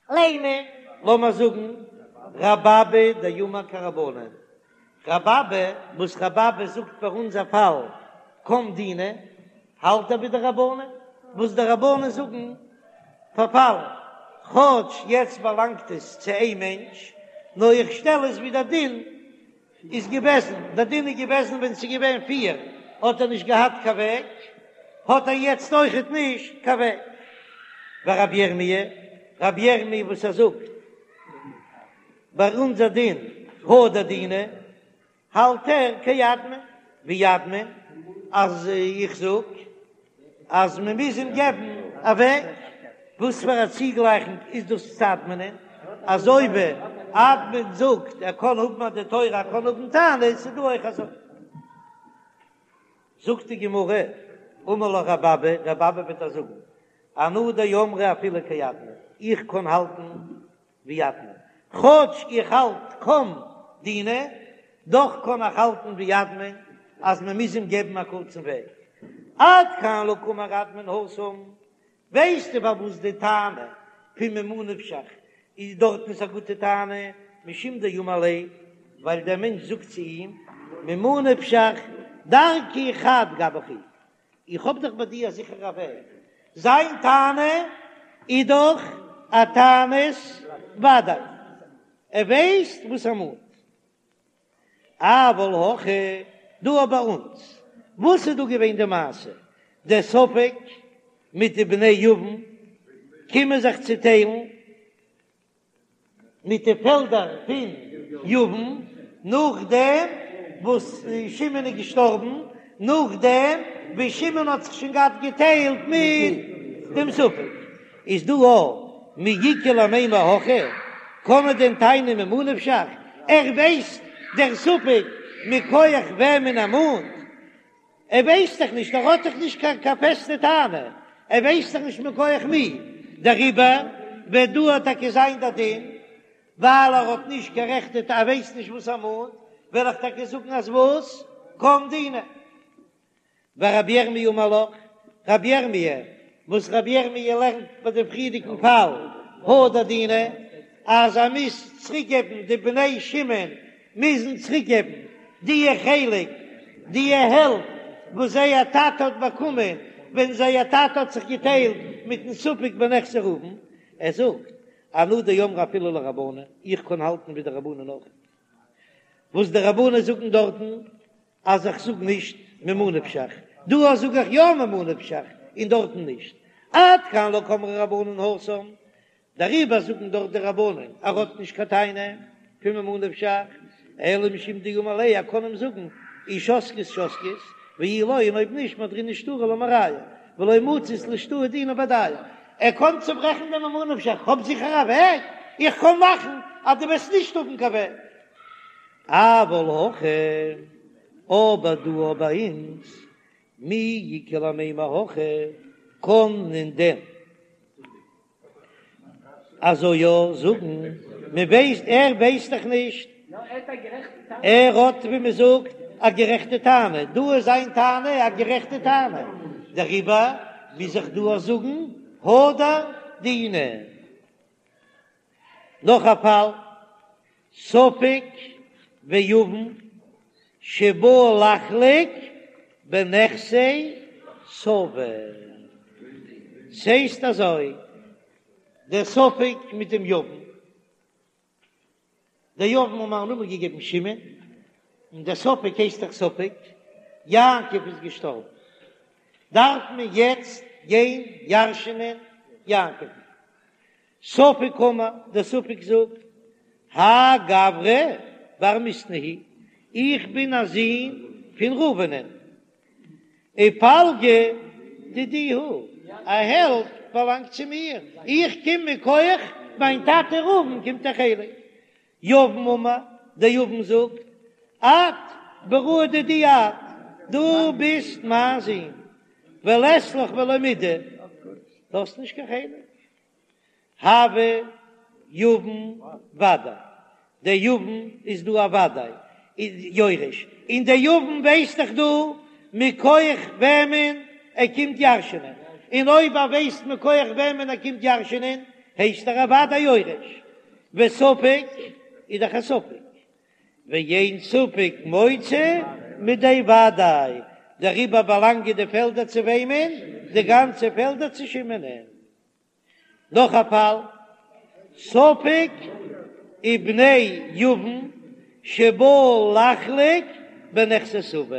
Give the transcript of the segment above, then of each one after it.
לימא, לאמיר זאגן רבי אבא דאמר כרבנן, רבי אבא, וואס רבי אבא זאגט פאר אונזער פאל קם דינא, האלט ער ווי די רבנן, וואס די רבנן זאגן פארפאלן, כאטש יעצט באלאנגט עס צו איין מענטש, נאר איך שטעל עס ווי דער דין איז געוועזן, דער דין איז געוועזן ווען ס'איז געווען פיר האט ער נישט געהאט קיין וועג, האט ער יעצט אויכעט נישט קיין וועג. ורבי ירמי', רבי ירמי' וואס ער זאגט ביי אונזער דין הדר דינא, האלט ער כאדמון, ווי אדמון, אז איך זאג אז מען מוז אים געבן א וועג, וואס פאר א צוגלייכונג איז דאס צו אדמונ'ען, אזוי ווי אדמון זאגט ער קען האבן א דין תורה ער קען האבן טענות, איז דא אויך אזוי. זאגט די גמרא, אמר לך רבי אבא, רבי אבא וועט דיר זאגן, אנא דאמרי אפילו כאדמון, איך קען האלטן ווי אדמון, כאטש איך האלט קם דינא, דאך קען איך האלטן ווי אדמון אז מען מוז אים געבן א קורצן וועג. עד כאן לא קאמר אדמון התם, ווייסטו פארוואס די טענה פון ממה נפשך איז דארטן איז א גוטע טענה, משום דאמר ליה, ווייל דער מענטש זאגט צו אים, ממה נפשך דרכי חד גבך הוא, איך האב דאך ביי דיר א זיכערע וועג, זיין טענה איז דאך א טענת ודאי, ער ווייסט וואס ער מאנט. אבל הכא, דא ביי אונז, וואס איז דא געווען די מעשה? דער ספק מיט די בני יבם קומען זיך צוטיילן, מיט די פעלדער פון יבם, נאכדעם וואס שמעון איז געשטארבן, נאכדעם ווי שמעון האט זיך שוין געהאט געטיילט מיט דעם ספק, איז דא א מי איכא למימר הכי, קען מען דען טענה'ן ממה נפשך, ער ווייסט דער ספק מכח וועמען ער מאנט, ער ווייסט דאך נישט, ער האט דאך נישט קיין קיין פעסטע טענה, ער ווייסט דאך נישט מכח מי, דעריבער וועט דא טאקע זיין דער דין, ווייל ער האט נישט קיין רעכטע טענה, ער ווייסט נישט וואס ער מאנט, וועל איך טאקע זאגן אז וואס? קם דינא. ורבי ירמי' אמר לך, רבי ירמי', וואס רבי ירמי' לערנט ביי דעם פריערדיגן פאל, הדר דינא, אז ער מוז צוריקגעבן די בני שמעון מוזן צוריקגעבן די חלק, די העלפט וואס זייער טאטע האט באקומען ווען זייער טאטע האט זיך געטיילט מיטן ספק בנכסי ראובן, ער זאגט, אנא דאמרי אפילו לרבנן, איך קען האלטן ווי די רבנן אויך, וואס די רבנן זאגן דארטן אז איך זאג נישט ממה נפשך, דא זאג איך יא ממה נפשך און דארטן נישט, עד כאן לא קאמרי רבנן התם, דעריבער זאגן דארט די רבנן ער האט נישט קיין טענה פון ממה נפשך, אלא משום דאמר ליה ער קען אים זאגן אי שתקית שתקית ואי לא און אויב נישט מהדרינן שטרא למרייהו ולא מצית לאשתעויי דינא בהדייהו, ער קען צוברעכן דעם ממה נפשך, כ'האב זיכער א וועג, איך קען מאכן אז דו וועסט נישט האבן קיין וועג. אבל הכא, אבער דא ביי אונז, מי איכא למימר הכי, קען מען דען אזוי יא זאגן, מען ווייסט, ער ווייסט דאך נישט, ער האט ווי מען זאגט א גערעכטע טענה, דא איז זיין טענה א גערעכטע טענה, דעריבער מוז איך דא זאגן הדר דינא. נאך א פאל, ספק ויבם שבאו לחלוק בנכסי סבא. ס'הייסט אזוי, דער ספק מיט דעם יבם, דער יבם האט מען א נאמען געגעבן שמעון, און דער ספק הייסט דאך ספק, יעקב איז געשטארבן, דארף מען יעצט גיין ירש'נען יעקב'ן. ספק אמר, דער ספק זאגט, האי גברא בר מיתנא הוא, איך בין א זון פון ראובנ'ען, ופלגא דידי הוא, א העלפט באלאנגט צו מיר, איך קום מכח מיין טאטע ראובן קומט א חלק. יבם אמר, דער יבם זאגט, את בראי דידי את, דו ביסט מיין זון, ולית לך ולא מידי, דו האסט נישט קיין חלק. הוי יבם ודאי, דער יבם איז דא א ודאי יורש, און דער יבם ווייסט דאך דא מכח וועמען ער קומט ירש'נען. און אויב ער ווייסט מכח וועמען ער קומט ירש'ענען, הייסט ער אוודאי יורש, וספק איז דאך א ספק, ואין ספק מוציא מידי וודאי, דעריבער באלאנגען די פעלדער צו וועמען? די גאנצע פעלדער צו שמעונ'ען. נאך א פאל, ספק ובני יבם שבאו לחלוק בנכסי סבא,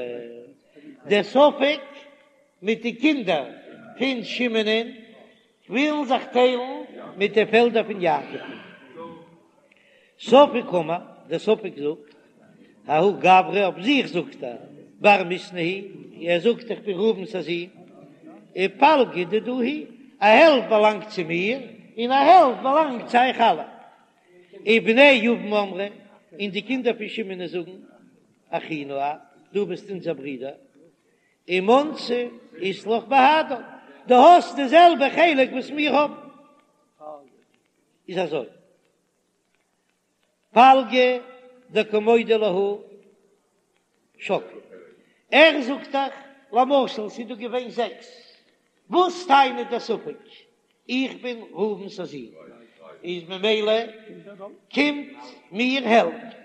דער ספק מיט די קינדער פון שמעונ'ען ווילן זיך טיילן מיט די פעלדער פון יעקב. ספק קאמר, דער ספק זאגט, ההוא גברא אויף זיך זאגט ער, בר מיתנא הוא, ער זאגט איך בין ראובן'ס א זון, ופלגא דידי הוא, א העלפט באלאנגט צו מיר, און א העלפט באלאנגט צו אייך אלע. ובני יבם אמרי, און די קינדער פון שמעון זאגן, אחינו את, דו ביסט אונזער ברודער, ומנתא אית לך בהדן, דו האסט די זעלבע חלק וואס מיר האבן. איז אזוי, פלגא דקא מודה להו שקלי, ער זאגט דאך, למשל ס'איז דא געווען זעקס, וואס טענה'ט דער ספק? איך בין ראובן'ס א זון, איז ממילא קומט מיר העלפט,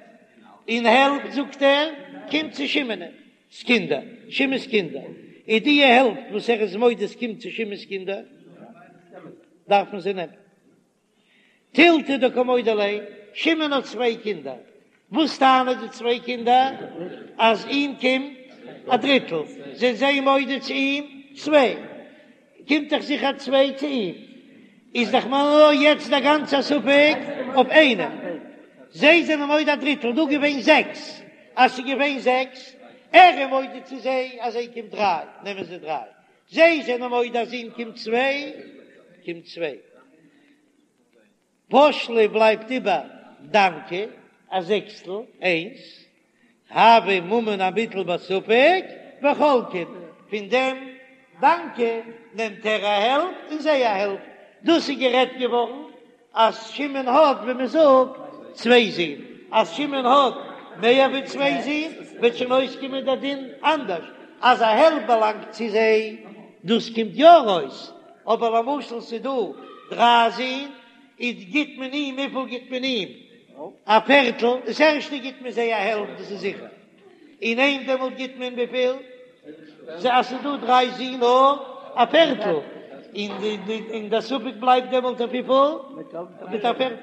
און העלפט זאגט ער קומט צו שמעון'ס קינדער, שמעון'ס קינדער, איז די העלפט וואס ער איז מודה ס'קומט צו שמעון'ס קינדער, דארפן זיי נעמען. תילתא דקא מודו ליה, שמעון האט צוויי קינדער, וואס טענה'ן די צוויי קינדער? אז אים קומט א דריטל, זענען זיי מודה צו אים צוויי, קומט דאך זיכער צוויי צו אים, איז דאך נאר יעצט דער גאנצער ספק אויף איינעם, זיי זענען מודה א דריטל, דא געווען זעקס, אז ס'איז געווען זעקס, ער איז מודה צו זיי אז זיי קומט דריי, נעמען זיי דריי, זיי זענען מודה אז אים קומט צוויי, קומט צוויי. פש ליה בלייבט איבער דנקא, א זעקסטל, איינס. הוי ממון המוטל בספק וחולקין, פון דעם דנקא נעמט ער א העלפט און זיי א העלפט. דאס איז גערעדט געווארן אז שמעון האט ווי מען זאגט צוויי זין, אז שמעון האט מער ווי צוויי זין וועט שוין אויסקומען דער דין אנדערש, אז א העלפט באלאנגט צו זיי, דאס קומט יא ארויס, אבער למשל ס'איז דא דריי זין, איז גיט מען אים, וויפיל גיט מען אים? א פערטל, דאס ערשטע גיט מען זיי א העלפט דאס איז זיכער. און אים דעמאלט גיט מען וויפיל? אז ס'איז דא דריי זין נאר א פערטל, און דער ספק בלייבט דעמאלט אויף וויפיל? מיט א פערטל.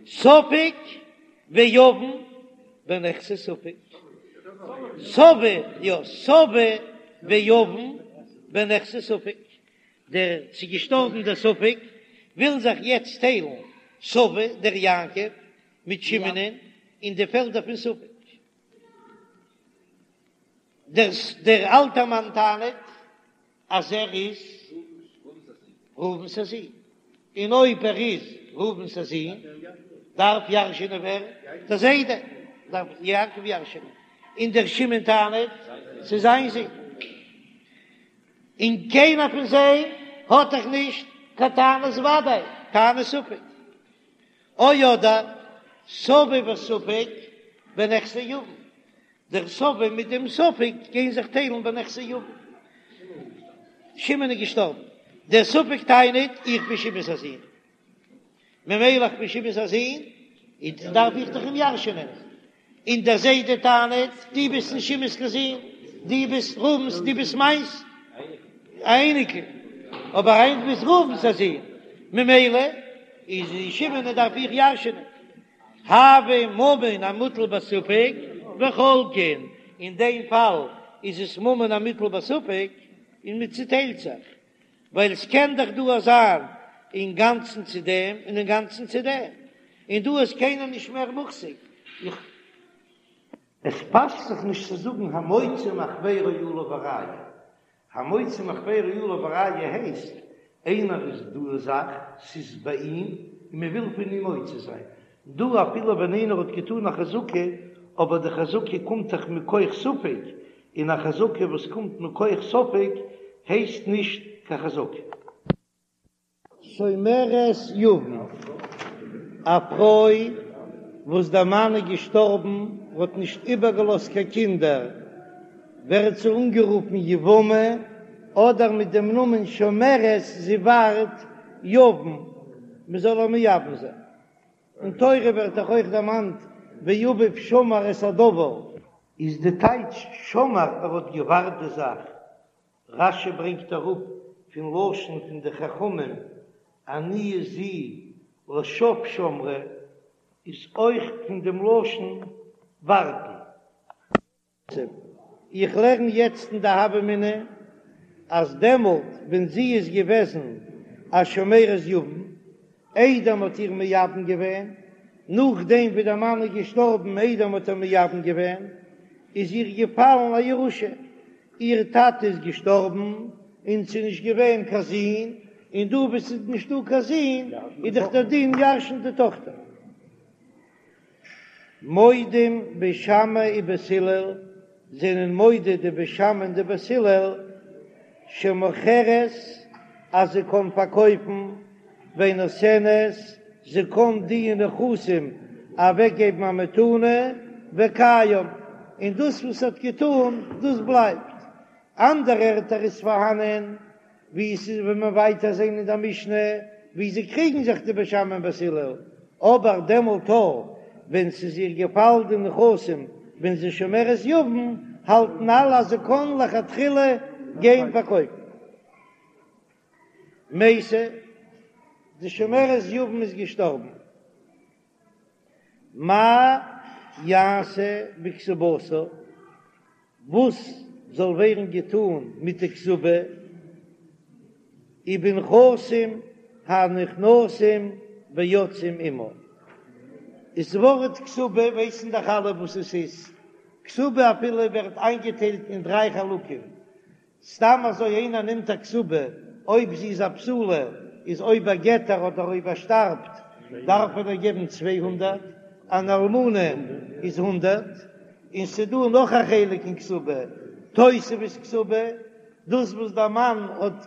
ספק ויבם בנכסי ספק. סבא, יא, סבא ויבם בנכסי ספק. דער ס'איז געשטארבן דער ספק וויל זיך יעצט טיילן סבא דער יעקב מיט שמעונ'ען אין די פעלדער פון ספק. דער דער אלטער מאן טענה'ט אז ער איז ראובן'ס א זון, און אויב ער איז ראובן'ס א זון דארף ירש'ענען ווער? דער זיידע דארף יעקב ירש'ענען, און דער שמעון טענה'ט ס'איז זיין זון, און קיינער פון זיי האט דאך נישט קיין טענת ודאי, טענת ספק. או אדער סבא וספק בנכסי יבם, דער סבא מיט דעם ספק גייען זיך טיילן בנכסי יבם. שמעון איז געשטארבן, דער ספק טענה'ט איך בין שמעון'ס א זון, ממילא איך בין שמעון'ס א זון, איז דארף איך דאך אים ירש'ענען, און דער זיידע טענה'ט, דו ביסט נישט שמעון'ס קיין זון, דו ביסט ראובן'ס, דו ביסט מיינס א אייניקל, אבער היינט ביסט ראובן'ס א זון, ממילא איז שמעון דארף איך ירש'ענען. הוי ממון המוטל בספק וחולקין, אין דעם פאל איז עס ממון המוטל בספק און מען צוטיילט זיך, ווייל עס קען דאך דא זיין אינגאנצן צו דעם און אינגאנצן צו דעם, און דא איז קיינער נישט מער מוחזק, איך. עס פאסט זיך נישט צו זאגן המוציא מחבירו עליו הראיה, המוציא מחבירו עליו הראיה הייסט איינער איז דא א זאך, ס'איז ביי אים און מען וויל פון אים מוציא זיין, דא אפילו ווען איינער האט געטאן א חזקה, אבער די חזקה קומט דאך מכח ספק, און א חזקה וואס קומט מכח ספק הייסט נישט קיין חזקה. שומרת יבם, א פרוי וואס דער מאן איז געשטארבן האט נישט איבערגעלאזט קיין קינדער, ווערט זי אנגערופן יבמה. אדער מיט דעם נאמען שומרת זי ווארט יבם מען זאל איר מייבם זיין. אין תורה ווערט דאך אויך דערמאנט ואביו שמר את הדבר. איז די טייטש שמר ער האט געווארט די זאך, רש"י ברענגט אראפ פון לשון פון די חכמים עניה זו לשוא שמרה איז אויך פון דעם לשון ווארטן. איך לערן יעצט אין די הוה אמינא אז דעמאלט ווען זי איז געוועזן א שומרת יבם איידער מ'האט איר מייבם געווען, נאכדעם ווי דער מאן איז געשטארבן איידער מ'האט איר מייבם געווען, איז איר געפאלן א ירושה, איר טאטע איז געשטארבן און ס'איז נישט געווען קיין זון, און דא וואו ס'איז נישטא קיין זון איז דאך דער דין ירש'נט די טאכטער. מודים בית שמאי ובית הלל זענען מודה די בית שמאי און די בית הלל שמוכרת אז זי קען פארקויפן ונותנת זי קען די נכסים אוועקגעבן א מתנה וקיים און דאס וואס האט געטאן דאס בלייבט אנדערע ערטער איז פארהאנען ווי עס איז ווען מען ווייטער זען אין דער משנה ווי זיי קריגן זיך די בית שמאי און בית הלל, אבער דעמאלט אויך ווען ס'איז איר געפאלן די נכסים ווען זי שומרת יבם, האלטן אלע אז זי קען לכתחילה גיין פארקויפן. מתה, די שומרת יבם איז געשטארבן. מה יעשה בכתובתה, וואס זאל ווערן געטאן מיט די כתובה, ובנכסים הנכנסים ויוצאים עמה. איז ווארט כתובה ווייסן דאך אלע וואס עס איז, כתובה אפילו ווערט איינגעטיילט אין דריי חלקים, סתם אזוי איינער נעמט א כתובה, אויב זי איז א בתולה, איז אויב ער גט איר אדער אויב ער שטארבט דארף ער איר געבן 200, אן אלמנה איז הונדערט, און ס'דא נאך א חלק אין כתובה, תוספת כתובה, דאס וואס דער מאן האט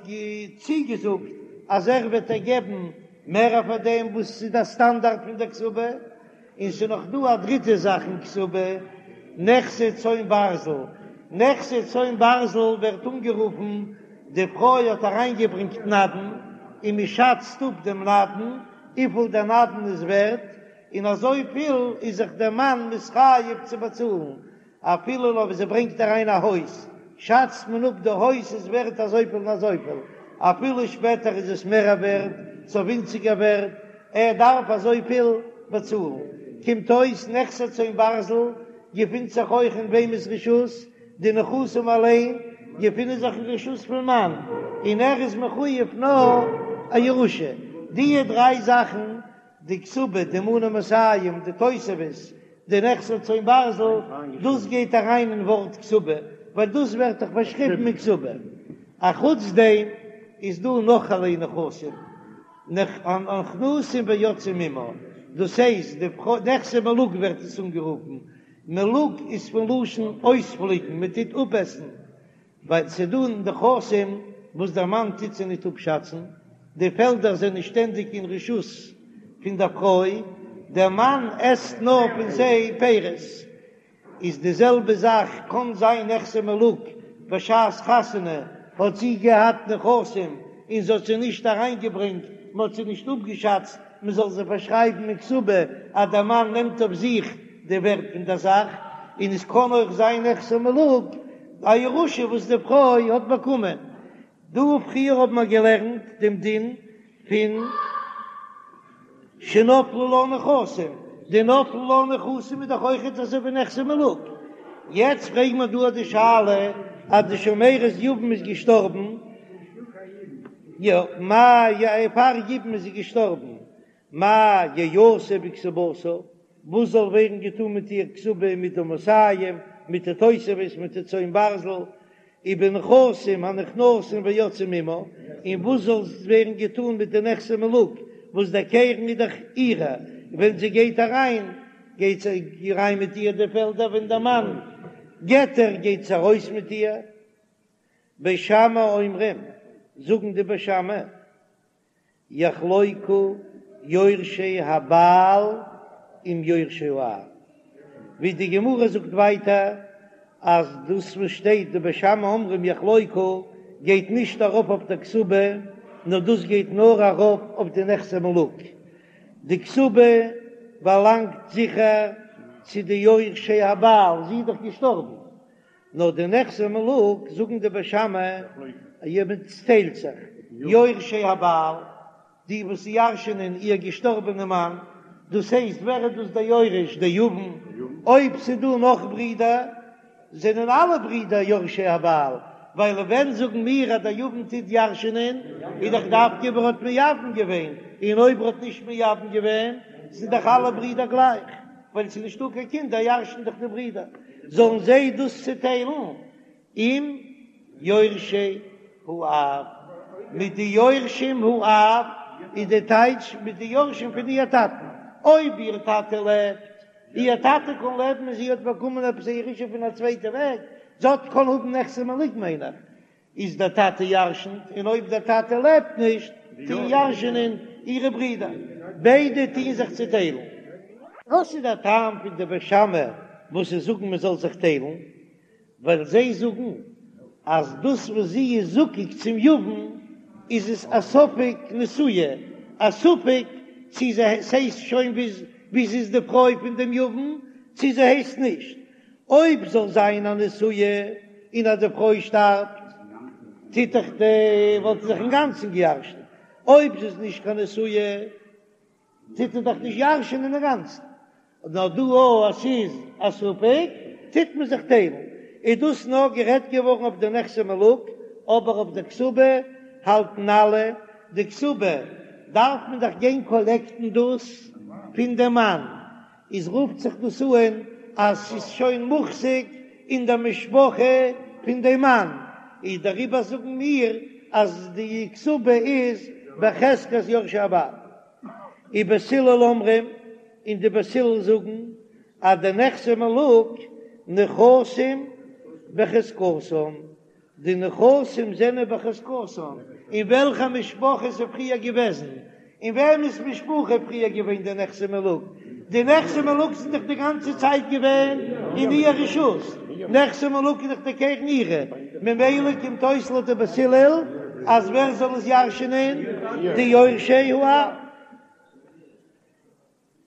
צוגעזאגט אז ער וועט איר געבן מער פאר דעם וואס איז דער סטאנדארט פון דער כתובה. און ס'איז נאך דא א דריטע זאך אין כתובה, נכסי צאן ברזל. נכסי צאן ברזל ווערט אנגערופן, די פרוי האט אריינגעברענגט נדן, און מען שאצט אפ דעם נדן, וויפיל דער נדן איז ווערט, און אזויפיל איז זיך דער מאן מתחייב צו באצאלן, אפילו אויב זי ברענגט אריין א הויז, שאצט מען אפ די הויז איז ווערט אזויפיל און אזויפיל, אפילו שפעטער איז עס מער ווערט צו ווינציגער ווערט, ער דארף אזויפיל באצאלן. קומט אויס נכסי צאן ברזל געפינט זיך אויך אין וועמענס רשות? די נכסים אליין געפינען זיך אין רשות פון מאן, און ער איז מחויב נאר א ירושה. די דריי זאכן די כתובה, די מנה מאתים, די תוספת, די נכסי צאן ברזל, דאס גייט אריין אין ווארט כתובה, ווייל דאס ווערט דאך באשריבן אין כתובה. אחוץ דעם איז דא נאך אלע נכסים, הנכנסים ויוצאים עמה, דאס הייסט די נכסי מלוג ווערט עס אנגערופן, מלוג איז פון לשון אויספליקן, מען טוט אפעסן, ווייל ס'איז דא נכסים וואס דער מאן טוט זיי ניט אפשאצן, די פעלדער זענען שטענדיג אין רשות פון דער פרוי, דער מאן עסט נאר פון זיי פירות. איז די זעלבע זאך קאן זיין נכסי מלוג, בשעת חתונה האט זי געהאט נכסים און זי האט זיי נישט אריינגעברענגט, מען האט זיי נישט אפגעשאצט, מען זאל זיי פארשרייבן אין כתובה אז דער מאן נעמט אויף זיך די ווערט פון דער זאך, און עס קען אויך זיין נכסי מלוג א ירושה וואס די פרוי האט באקומען. דא פריער האבן מיר געלערנט דעם דין פון שנפלו לה נכסים, די נפלו לה נכסים איז דאך אויכעט אזוי ווי נכסי מלוג. יעצט פרעגן מיר דא די שאלה אז די שומרת יבם איז געשטארבן, יא, מה י פאר יבום איז זי געשטארבן, מה יעשה בכתובתה, וואס זאל ווערן געטון מיט איר כתובה מיט די מאתים, מיט די תוספת, מיט די צאן ברזל, ובנכסים הנכנסים ויוצאים עמה, און וואס זאל ווערן געטון מיט די נכסי מלוג, וואס דער קרן איז דאך אירע, ווען זי גייט אריין, גייט זי אריין מיט איר די פעלדער, ווען דער מאן גט איר, גייט זי ארויס מיט איר. בית שמאי אומרים, זאגן די בית שמאי, יחלוקו יורשי הבעל עם יורשי האב, ווי די גמרא זאגט ווייטער אז דאס וואס שטייט די בית שמאי אומרים יחלוקו. גייט נישט ארויף אויף דער כתובה, נאר דאס גייט נאר ארויף אויף די נכסי מלוג. די כתובה באלאנגט זיכער צו די יורשי הבעל, זי איז דאך געשטארבן, נאר די נכסי מלוג זאגן די בית שמאי אז מען טיילט זיך, יורשי הבעל, די וואס ירש'ענען איר געשטארבענע מאן, דאס הייסט ווער איז דאס דער יורש? דער יבם, אויב ס'איז דא נאך ברידער זענען אלע ברידער יורשי הבעל, ווייל ווען זאגן מיר אז דער יבם טוט ירש'ענען איז דאך דווקא אויב ער האט מייבם געווען, און אויב ער האט נישט מייבם געווען זענען דאך אלע ברידער גלייך, ווייל ס'איז נישטא קיין קינדער ירש'ן דאך די ברידער, זאלן זיי דאס צוטיילן עם יורשי האב, מיט די יורשים האב איז די טייטש מיט די יורשים פון איר טאטן, אויב איר טאטע לעבט, איר טאטע קען לעבן און זי האט באקומען עפעס א ירושה פון א צווייטע וועג, זי האט קען האבן נכסי מלוג מיין איך, איז דער טאטע ירשנט, און אויב דער טאטע לעבט נישט, טוהן ירשענען אירע ברידער, ביידע טוהן זיך צוטיילן. וואס איז דער טעם פון די בית שמאי וואס זיי זאגן מען זאל זיך טיילן? ווייל זיי זאגן אז דאס וואס זי איז זקוק צום יבם איז עס א ספק נשואה, א ספק צי זי ס'הייסט שוין ווי זי איז די פרוי פון דעם יבם צי זי הייסט נישט, אויב זאל זיין א נשואה און אז די פרוי שטארבט טוט דאך די וואלט זי זיך אינגאנצן געירשנט, אויב זי איז נישט קיין נשואה טוט ער דאך נישט ירש'ענען אינגאנצן, נאר דא אויב עס איז א ספק טוט מען זיך טיילן, איז דאס נאר גערעדט געווארן אויף די נכסי מלוג, אבער אויף די כתובה האלטן אלע, די כתובה דארף מען דאך גיין קאלעקטן דאס פון די מאן, איז רופט זיך דאס אן אז ס'איז שוין מוחזק אין די משפחה פון די מאן, איז דעריבער זאגן מיר אז די כתובה איז בחזקת יורשי הבעל. ובית הלל אומרים, און די בית הלל זאגן אז די נכסי מלוג נכסים בחזקתן, די נכסים זענען בחזקתן, אין וועלכע משפחה איז פריער געוועזן, אין וועמענס משפחה איז פריער געווען די נכסי מלוג, די נכסי מלוג זענען דאך די גאנצע צייט געווען אין איר רשות, נכסי מלוג איז דאך די קרן אירע, ממילא קומט אויס לויט די בית הלל אז ווער זאל עס ירש'נען? די יורשי האב.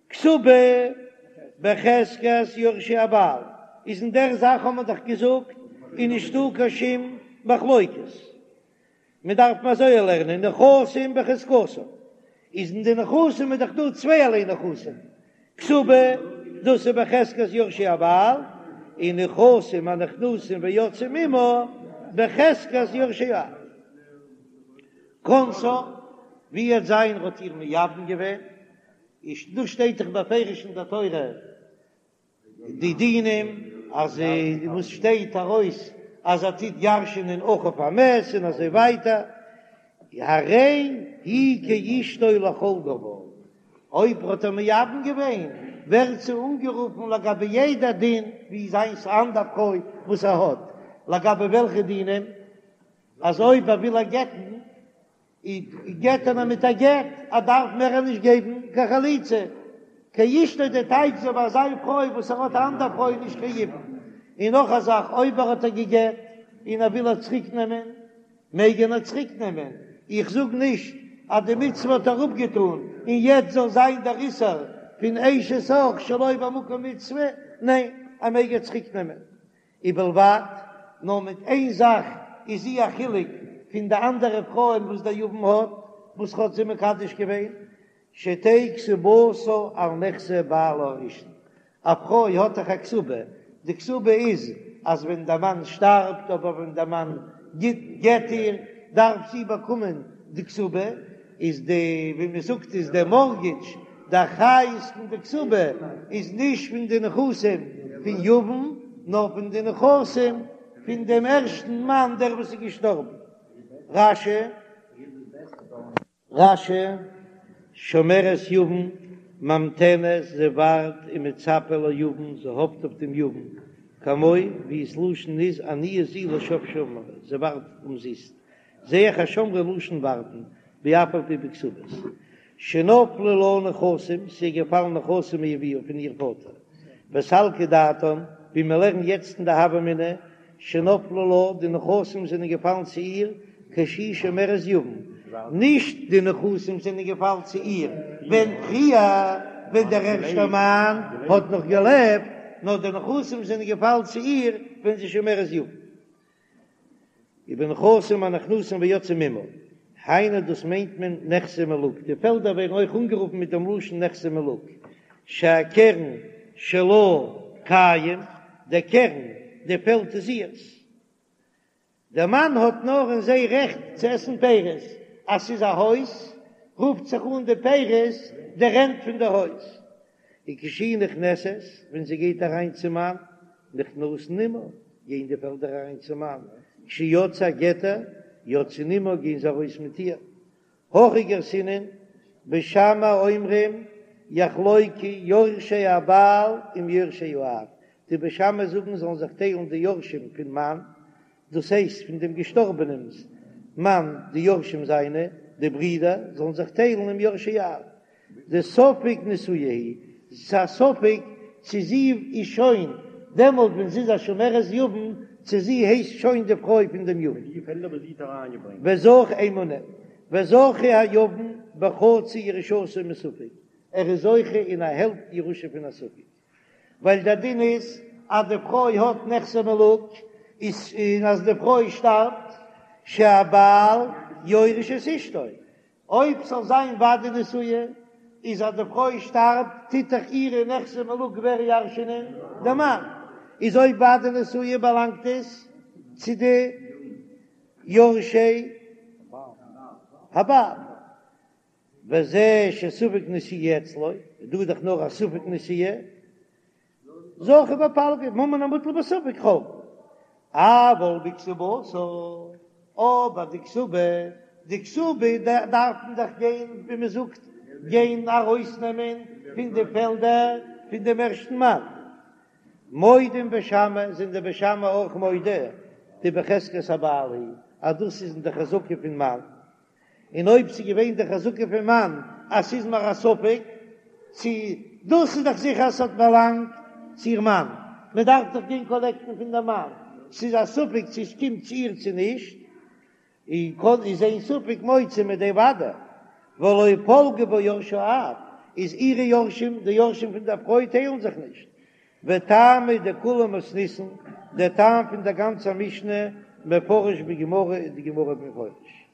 כתובה בחזקת יורשי הבעל איז אין דער זאך האט מען דאך געזאגט איז נישטא קיין שום מחלוקת, מען דארף מען אזוי לערנען נכסים בחזקתן, איז אין די נכסים איז דאך דא צווייערליי נכסים, כתובה דאס איז בחזקת יורשי הבעל, און נכסים הנכנסים ויוצאים עמה בחזקת יורשי האב. כנסה, ווי עט זיין האט איר מייבם געווען, איז דא שטייט דאך בפירוש אין דער תורה די דינים אז וואס שטייט ארויס אז ער טוט ירש'ענען אחיו המת און אזוי ווייטער, הרי היא כאשתו לכל דבר, אויב האט ער מייבם געווען ווערט זי אנגערופן לגבי יעדע דין ווי זיינס א אנדער פרוי וואס ער האט, לגבי וועלכע דינים? אז אויב ער וויל איר גט'ן גט ער איר מיט א גט, ער דארף מער נישט געבן קיין חליצה, כאשתו די טייטש זי ווי זיין פרוי וואס ער האט א אנדער פרוי נישט קיין יבום, און נאך א זאך אויב ער האט איר געגט און ער וויל איר צוריק נעמען מעג ער איר צוריק נעמען, איך זאג נישט אז די מצוה האט ער אפגעטון און יעצט זאל זיין דער איסור פון אשת אח שלא במקום מצוה, ניין ער מעג איר צוריק נעמען. ובלבד, נאר מיט איין זאך איז זי א חילוק פון די אנדערע פרויען וואס דער יבם האט, וואס האט זי מקדש געווען, שתהא כתובתה על נכסי בעלה הראשון, א פרוי האט דאך א כתובה, די כתובה איז אז ווען דער מאן שטארבט אדער ווען דער מאן גט איר, דארף זי באקומען די כתובה, איז די ווי מען זאגט איז די מארטגעדזש די אחריות פון די כתובה איז נישט פון די נכסים פון יבם נאר פון די נכסים פון דעם ערשטן מאן דער וואס איז געשטארבן. רש"י. רש"י, שומרת יבם, ממתנת, זי ווארט ומצפה ליבם, זי האפט אויף דעם יבם, כמו ווי ס'לשון איז עניה זו לשוא שמרה, זי ווארט אומזיסט. זע איך אז שמרה לשון ווארטן, ואף על פי בכתובות. שנפלו לה נכסים, ס'איז געפאלן נכסים מאביה פון איר פאטער. וסלקא דעתן, ווי מיר לערנען יעצט אין די הוה אמינא, שנפלו לה, די נכסים זענען געפאלן צו איר כשהיא שומרת יבם, נישט די נכסים זענען געפאלן צו איר ווען פריער ווען דער ערשטער מאן האט נאך געלעבט, נאר די נכסים זענען געפאלן צו איר ווען זי שומרת יבם. ובנכסים הנכנסים ויוצאים עמה, היינו דאס מיינט מען נכסי מלוג, די פעלדער ווערן אויך אנגערופן מיט דעם לשון נכסי מלוג, שהקרן שלה קיים, דער קרן, די פעלד איז אירס, דער מאן האט נאר אין זיי רעכט צו עסן פירות, אז ס'איז א הויז רופט זיך אן די פירות די רענט פון די הויז, וכשהיא נכנסת, ווען זי גייט אריין צום מאן, נכנסין עמה, גייען די פעלדער אריין צום מאן, כשיוצאה גט איר, יוצאין עמה, גייען זיי ארויס מיט איר. הכי גרסינן, בית שמאי אומרים, יחלוקו יורשי הבעל עם יורשי האב, די בית שמאי זאגן זאלן זיך טיילן די יורשים פון מאן, דאס הייסט פון דעם געשטארבענעמס מאן, די יורשים זיינע, די ברידער, זאלן זיך טיילן עם יורשי האב. דספק נשואה היא, ס'איז א ספק צו זי איז שוין דעמאלט ווען זי איז א שומרת יבם, צו זי הייסט שוין די פרוי פון דעם יבם. וזכה איין מינוט, וזכה היבם בחצי ירושתו מספק, ער איז זוכה אין א העלפט ירושה פון א ספק, ווייל דער דין איז אז די פרוי האט נכסי מלוג, איז און אז די פרוי שטארבט שהבעל יורש את אשתו, אויב ס'זאל זיין ודאי נשואה, איז אז די פרוי שטארבט טוט דאך אירע נכסי מלוג ווער ירש'ענען? די מאן. איז אויב ודאי נשואה באלאנגט עס צו די יורשי הבעל. וזה שספק נשואה אצלו, דא איז דאך נאר א ספק נשואה. זכה בפלגא, ממון המוטל בספק חולקין, אבל בכתובתה, אבער די כתובה, די כתובה דארף מען דאך גיין ווי מען זאגט גיין ארויסנעמען פון די פעלדער פון דעם ערשטן מאן. מודים בית שמאי, זענען די בית שמאי אויך מודה דבחזקת הבעל היא, אז דאס איז אין די חזקה פון מאן. און אויב ס'איז געווען די חזקה פון מאן אז ס'איז מיר א ספק צו דאס איז דאך זיכער אז ס'האט באלאנגט צו איר מאן, מ'דארף דאך גיין קאלעקטן פון די מאן, ס'איז א ספק צו עס קומט צו איר צו נישט, און קודם איז אין ספק מוציא מידי ודאי, ולא פלגי בה יורשי האב, איז אירע יורשים, די יורשים פון דער פרוי טיילן זיך נישט, וטעמא דכולה מתניתין, דער טעם פון דער גאנצער משנה מפרש בגמרא איז די גמרא מפרש.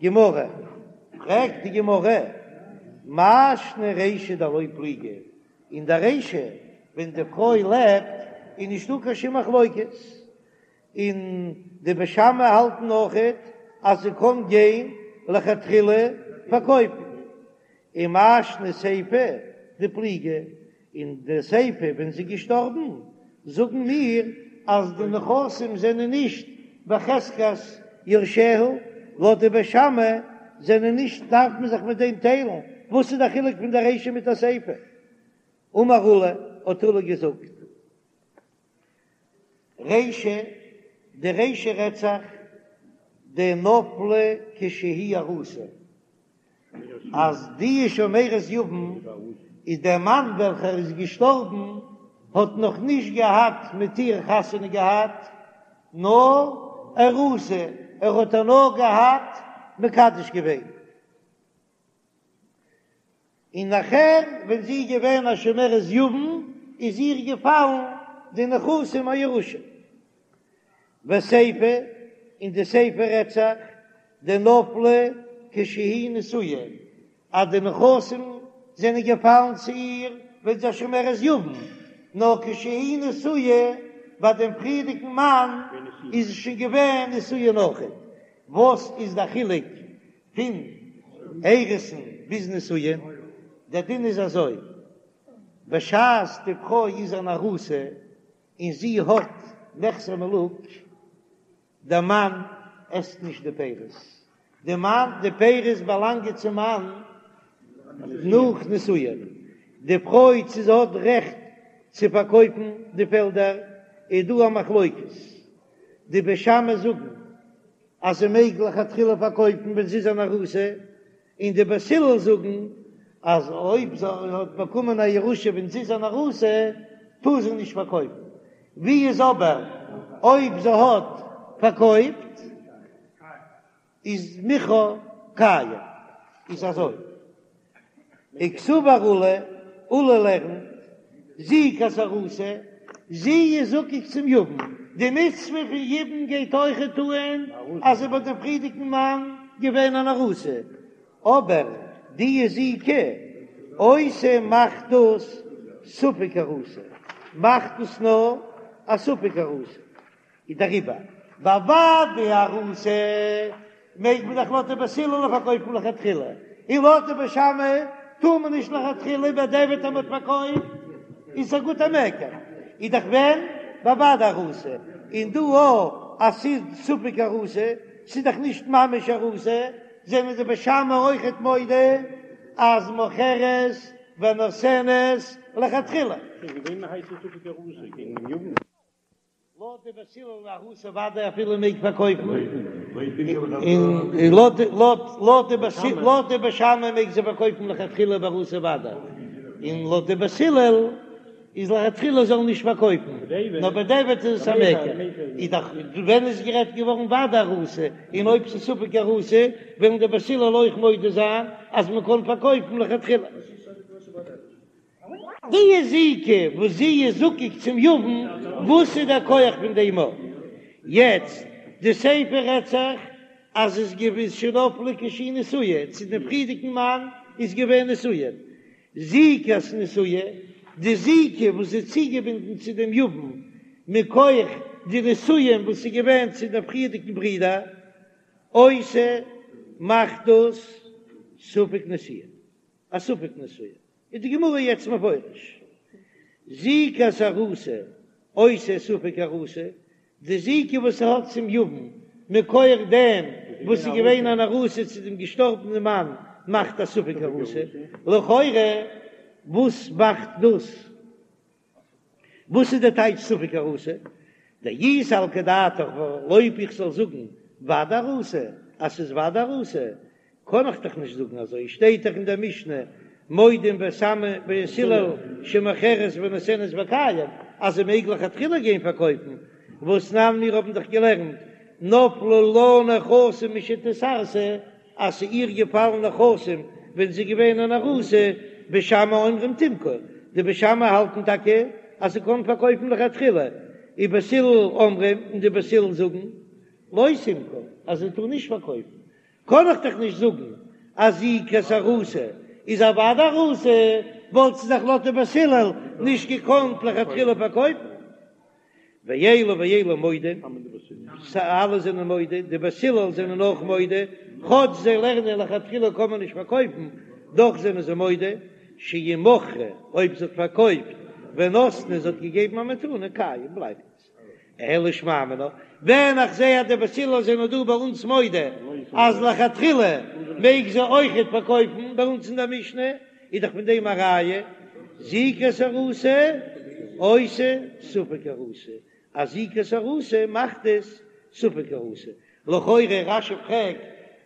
גמרא, פרעגט די גמרא, מאי שנא רישא דלא פליגי, אין דער רישא ווען די פרוי לעבט איז נישטא קיין שום מחלוקת, און די בית שמאי האלטן אויכעט אז זי קען גיין לכתחילה פארקויפן, ומאי שנא סיפא דפליגי, אין די סיפא ווען זי איז געשטארבן זאגן מיר אז די נכסים זענען נישט בחזקת יורשיה, לויט די בית שמאי זענען נישט דארף מען זיך מיט דעם טיילן, וואס איז די חילוק פון די רישא מיט די סיפא? אמר עולא, האט עולא געזאגט. רישא, די רישא רעדט זיך דנפלו כשהיא ארוסה, אז די שומרת יבם איז דער מאן וועלכער איז געשטארבן האט נאך נישט געהאט מיט איר חתונה געהאט, נאר ארוסה, ער האט איר נאר געהאט מקדש געווען. און נאכער ווען זי איז געווען א שומרת יבם איז איר געפאלן די נכסים א ירושה. וסיפא, און די סיפא רעדט זיך דנפלו כשהיא נשואה, אז די נכסים זענען געפאלן צו איר ווען זי איז א שומרת יבם, נאר כשהיא נשואה ביי דעם פריערדיגן מאן איז זי שוין געווען נשואה נאכער. וואס איז די חילוק פון אירוסין ביז נישואין, דער דין איז אזוי, בשעת די פרוי איז אן ארוסה און זי האט נכסי מלוג, דער מאן עסט נישט די פירות, די מאן, די פירות באלאנגען צום מאן נאך נישואין, די פרוי צו זי האט רעכט צו פארקויפן די פעלדער איז דא א מחלוקת, די בית שמאי זאגן אז זי מעג לכתחילה פארקויפן ווען זי איז אן ארוסה, און די בית הלל זאגן אז אויב זי האט באקומען א ירושה ווען זי איז אן ארוסה טאר זי נישט פארקויפן. ווי איז אבער. אויב זי האט פארקויפט איז מכרה קיים, איז אזוי, וקסבר עולא, עולא לערנט, זיקת ארוסה, זי איז זקוק צום יבם, די מצוה פון יבום גייט אויכעט אן אז זי איז ביי דעם פריערדיגן מאן געווען אן ארוסה, אבער די זיקה עושה מאכט דאס ספק ארוסה, מאכט דאס נאר א ספק ארוסה. איז דעריבער ביי ודאי ארוסה מעג מען דאך לויט די בית הלל פארקויפן לכתחילה, און לויט די בית שמאי טאר מען נישט לכתחילה, בדיעבד אז מען האט פארקויפט איז עס א גוטע מקח, איז דאך ווען ביי ודאי ארוסה, און דא אויך אז ס'איז ספק ארוסה, ס'איז דאך נישט ממש ארוסה, זענען די בית שמאי אויכעט מודה אז מוכרת ונותנת לכתחילה. לויט די בית הלל ארוסה ודאי אפילו מעג פארקויפן, און לויט די בית שמאי מעג זי פארקויפן לכתחילה בארוסה ודאי, און לויט די בית הלל איז לכתחילה זאל נישט פארקויפן, נאר בדיעבד איז עס א מקח, איז דאך ווען איז גערעדט געווארן ודאי ארוסה, און אויב ס'איז ספק ארוסה וועלן די בית הלל אויך מודה זיין אז מ'קען פארקויפן לכתחילה. די זיקה וואס זי איז זקוק צום יבם, וואס איז דער כח פון דעם? יעצט, די סיפא רעדט זיך אז עס געווען שנפלה כשהיא נשואה, צו דעם פריערדיגן מאן איז געווען נשואה, זיקת נשואה, די זיקה וואס איז צוגעבינדן צו דעם יבם מכח די נישואין וואס איז געווען צו דעם פריערדיגן ברודער, עושה מאכט דאס ספק נשואה, א ספק נשואה. איז די גמרא יעצט מפרש זיקת ארוסה עושה ספק ארוסה, די זיקה וואס ס'האט צום יבם מכח דעם וואס איז געווען אן ארוסה צו דעם געשטארבענעם מאן מאכט א ספק ארוסה, לכאורה וואס מאכט דאס? וואס איז די טייטש ספק ארוסה? דאי סלקא דעתך אויב איך זאל זאגן ודאי ארוסה אז ס'איז ודאי ארוסה קען איך דאך נישט זאגן אזוי שטייט דאך אין דער משנה מודים בית שמאי ובית הלל שמוכרת ונותנת וקיים אז זי מעג לכתחילה גיין פארקויפן והתנן מיר האבן דאך געלערנט נפלו לה נכסים משנתארסה אז ס'איז איר געפאלן נכסים ווען זי איז געווען אן ארוסה, בית שמאי אומרים תמכור, די בית שמאי האלטן טאקע אז זי קען פארקויפן לכתחילה, ובית הלל אומרים, און די בית הלל זאגן לא תמכור, אז זי טאר נישט פארקויפן, קען איך דאך נישט זאגן אז זיקת ארוסה איז א ודאי ארוסה, וואלט זי דאך לויט די בית הלל נישט געקאנט לכתחילה פארקויפן. ואלו ואלו מודים, אלע זענען מודה, די בית הלל זענען אויך מודה, כאטש זיי לערנען לכתחילה קען מען נישט פארקויפן, דאך זענען זיי מודה, שאם מכרה, אויב זי האט פארקויפט, ונתנה, זי האט געגעבן א מתנה, קיים, בלייבט עס. אלא שמע מינה, ווען איך זע אז די בית הלל זענען דא ביי אונז מודה אז לכתחילה מעג זי אויכעט פארקויפן, ביי אונז אין דער משנה, איז דאך פון דעם א ראיה, זיקת ארוסה עושה ספק ארוסה, אז זיקת ארוסה מאכט עס ספק ארוסה, לכאורה רש"י פרעגט,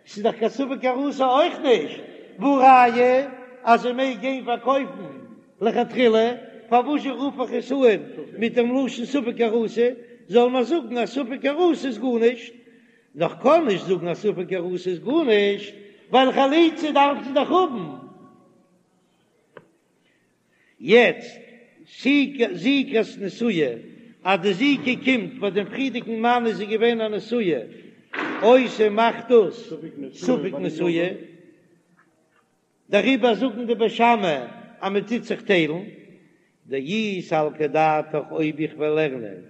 ס'איז דאך קיין ספק ארוסה אויך נישט, והא ראיה אז זי מעג גיין פארקויפן לכתחילה, פארוואזשע רוף איך עס אן מיט דעם לשון ספק ארוסה, זאל מען זאגן אז ספק ארוסה איז גארנישט, נאר כ'קען נישט זאגן אז ספק ארוסה איז גארנישט, ווייל חליצה דארף זי דאך האבן. יעצט, זיקת נשואה, אז די זיקה קומט ביי דעם פריערדיגן מאן איז זי געווען א נשואה, עושה מאכט דאס ספק נשואה. דעריבער זאגן די בית שמאי אז מען טוט זיך טיילן, דאי סלקא דעתך אויב איך וועל לערנען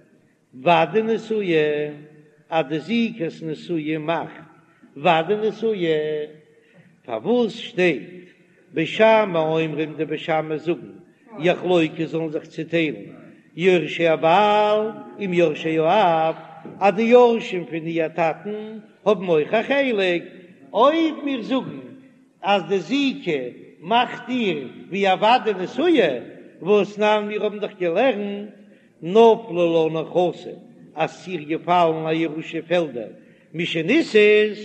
ודאי נשואה אז די זיקת נשואה מאכט ודאי נשואה, פארוואס שטייט בית שמאי אומרים די בית שמאי זאגן יחלוקו זאלן זיך צוטיילן יורשי הבעל עם יורשי האב אז די יורשים פון איר טאטן האבן אויך א חלק, אויב מיר זאגן אז די זיקה מאכט איר ווי א ודאי נשואה, והתנן מיר האבן דאך געלערנט נפלו לה נכסים אז ס'איז איר געפאלן א ירושה פעלדער משנישאת,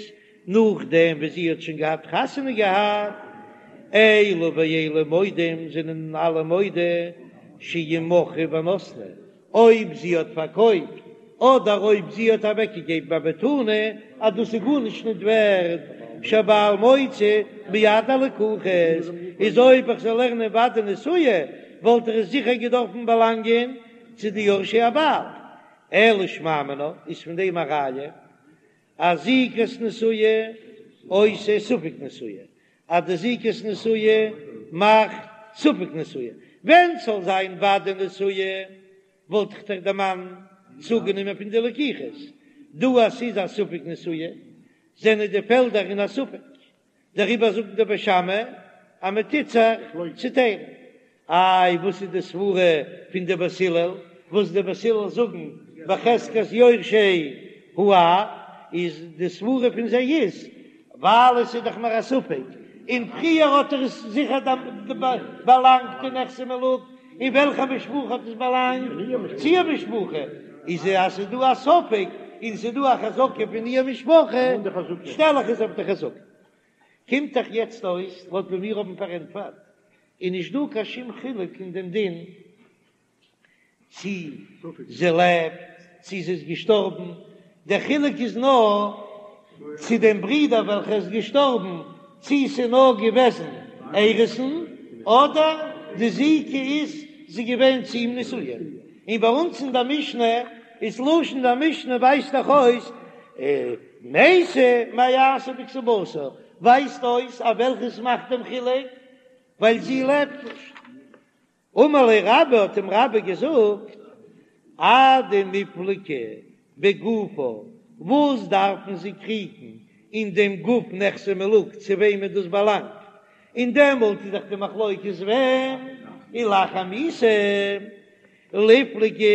נאכדעם ווי זי האט שוין געהאט חתונה געהאט, אלו ואלו מודים זענען אלע מודה שאם מכרה ונתנה, אויב זי האט פארקויפט. אדער אויב זי האט אוועקגעגעבן א מתנה אז דאס איז גארנישט ניט ווערד, שהבעל מוציא מיד הלקוחות, איז אויב איך זאל לערנען ודאי נשואה וואלט ער עס זיכער געדארפן באלאנגען צו די יורשי הבעל, אלא שמע מינה איז פון דעם א ראיה אז זיקת נשואה עושה ספק נשואה, אז די זיקת נשואה מאכט ספק נשואה, ווען ס'זאל זיין ודאי נשואה וואלט איך דאך די מאן צוגענומען פון די לקיחות, דא אז ס'איז א ספק נשואה זענען די פעלדער אין א ספק, דעריבער זאגן די בית שמאי אז מען טוט זיך צוטיילן. איי וואס איז די סברה פון די בית הלל וואס די בית הלל זאגן בחזקת יורשי האב, איז די סברה פון זיי איז ווייל עס איז דאך נאר א ספק, און פריער האט ער עס זיכער באלאנגט אין נכסי מלוג, אין וועלכע משפחה האט עס באלאנגט? צו איר משפחה, איז אז ס'איז דא א ספק און ס'איז דא א חזקה פון איר משפחה, שטעל איך עס אויף די חזקה. קומט דאך יעצט אויס לויט ווי מיר האבן פארענטפערט, איז נישט דא קיין שום חילוק אין דעם דין צי זי לעבט צי זי איז געשטארבן, דער חילוק איז נאר צו דעם ברודער וועלכער איז געשטארבן, צי ס'איז נאר געוועזן אירוסין אדער די זיקה איז זי געווען צו אים נשואה. און ביי אונז אין דער משנה איז לשון דער משנה ווייזט דאך אויס מתה מה יעשה בכתובתה, ווייזט אויס אז וועלכעס מאכט דעם חילוק ווייל זי לעבט נישט. אמר ליה רבה האט אים רבה געזאגט, אדמיפלגי בגופה, וואס דארפן זיי קריגן אין דעם גוף נכסי מלוג צו וועמען דאס באלאנגט, און דעמאלט איז דאך די מחלוקת ווען ולאחר מיתה ליפלגו,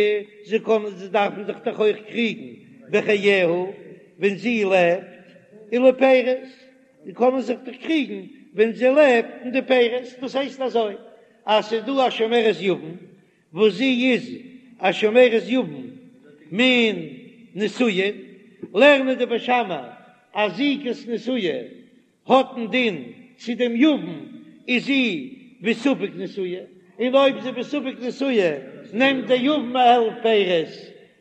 זיי קענען זיי דארפן זיך דאך אויך קריגן בחייה ווען זי לעבט, ולפירות, זיי קענען זיך דאך קריגן ווען זי לעבט אין די פירות, דאס הייסט אזוי אז ס'איז דא א שומרת יבם וואס זי איז א שומרת יבם מן נישואין, לערנען די בית שמאי אז זיקת נשואה האט א דין צו דעם יבם איז זי בספק נשואה, און אויב זי בספק נשואה נעמט דער יבם א העלפט פירות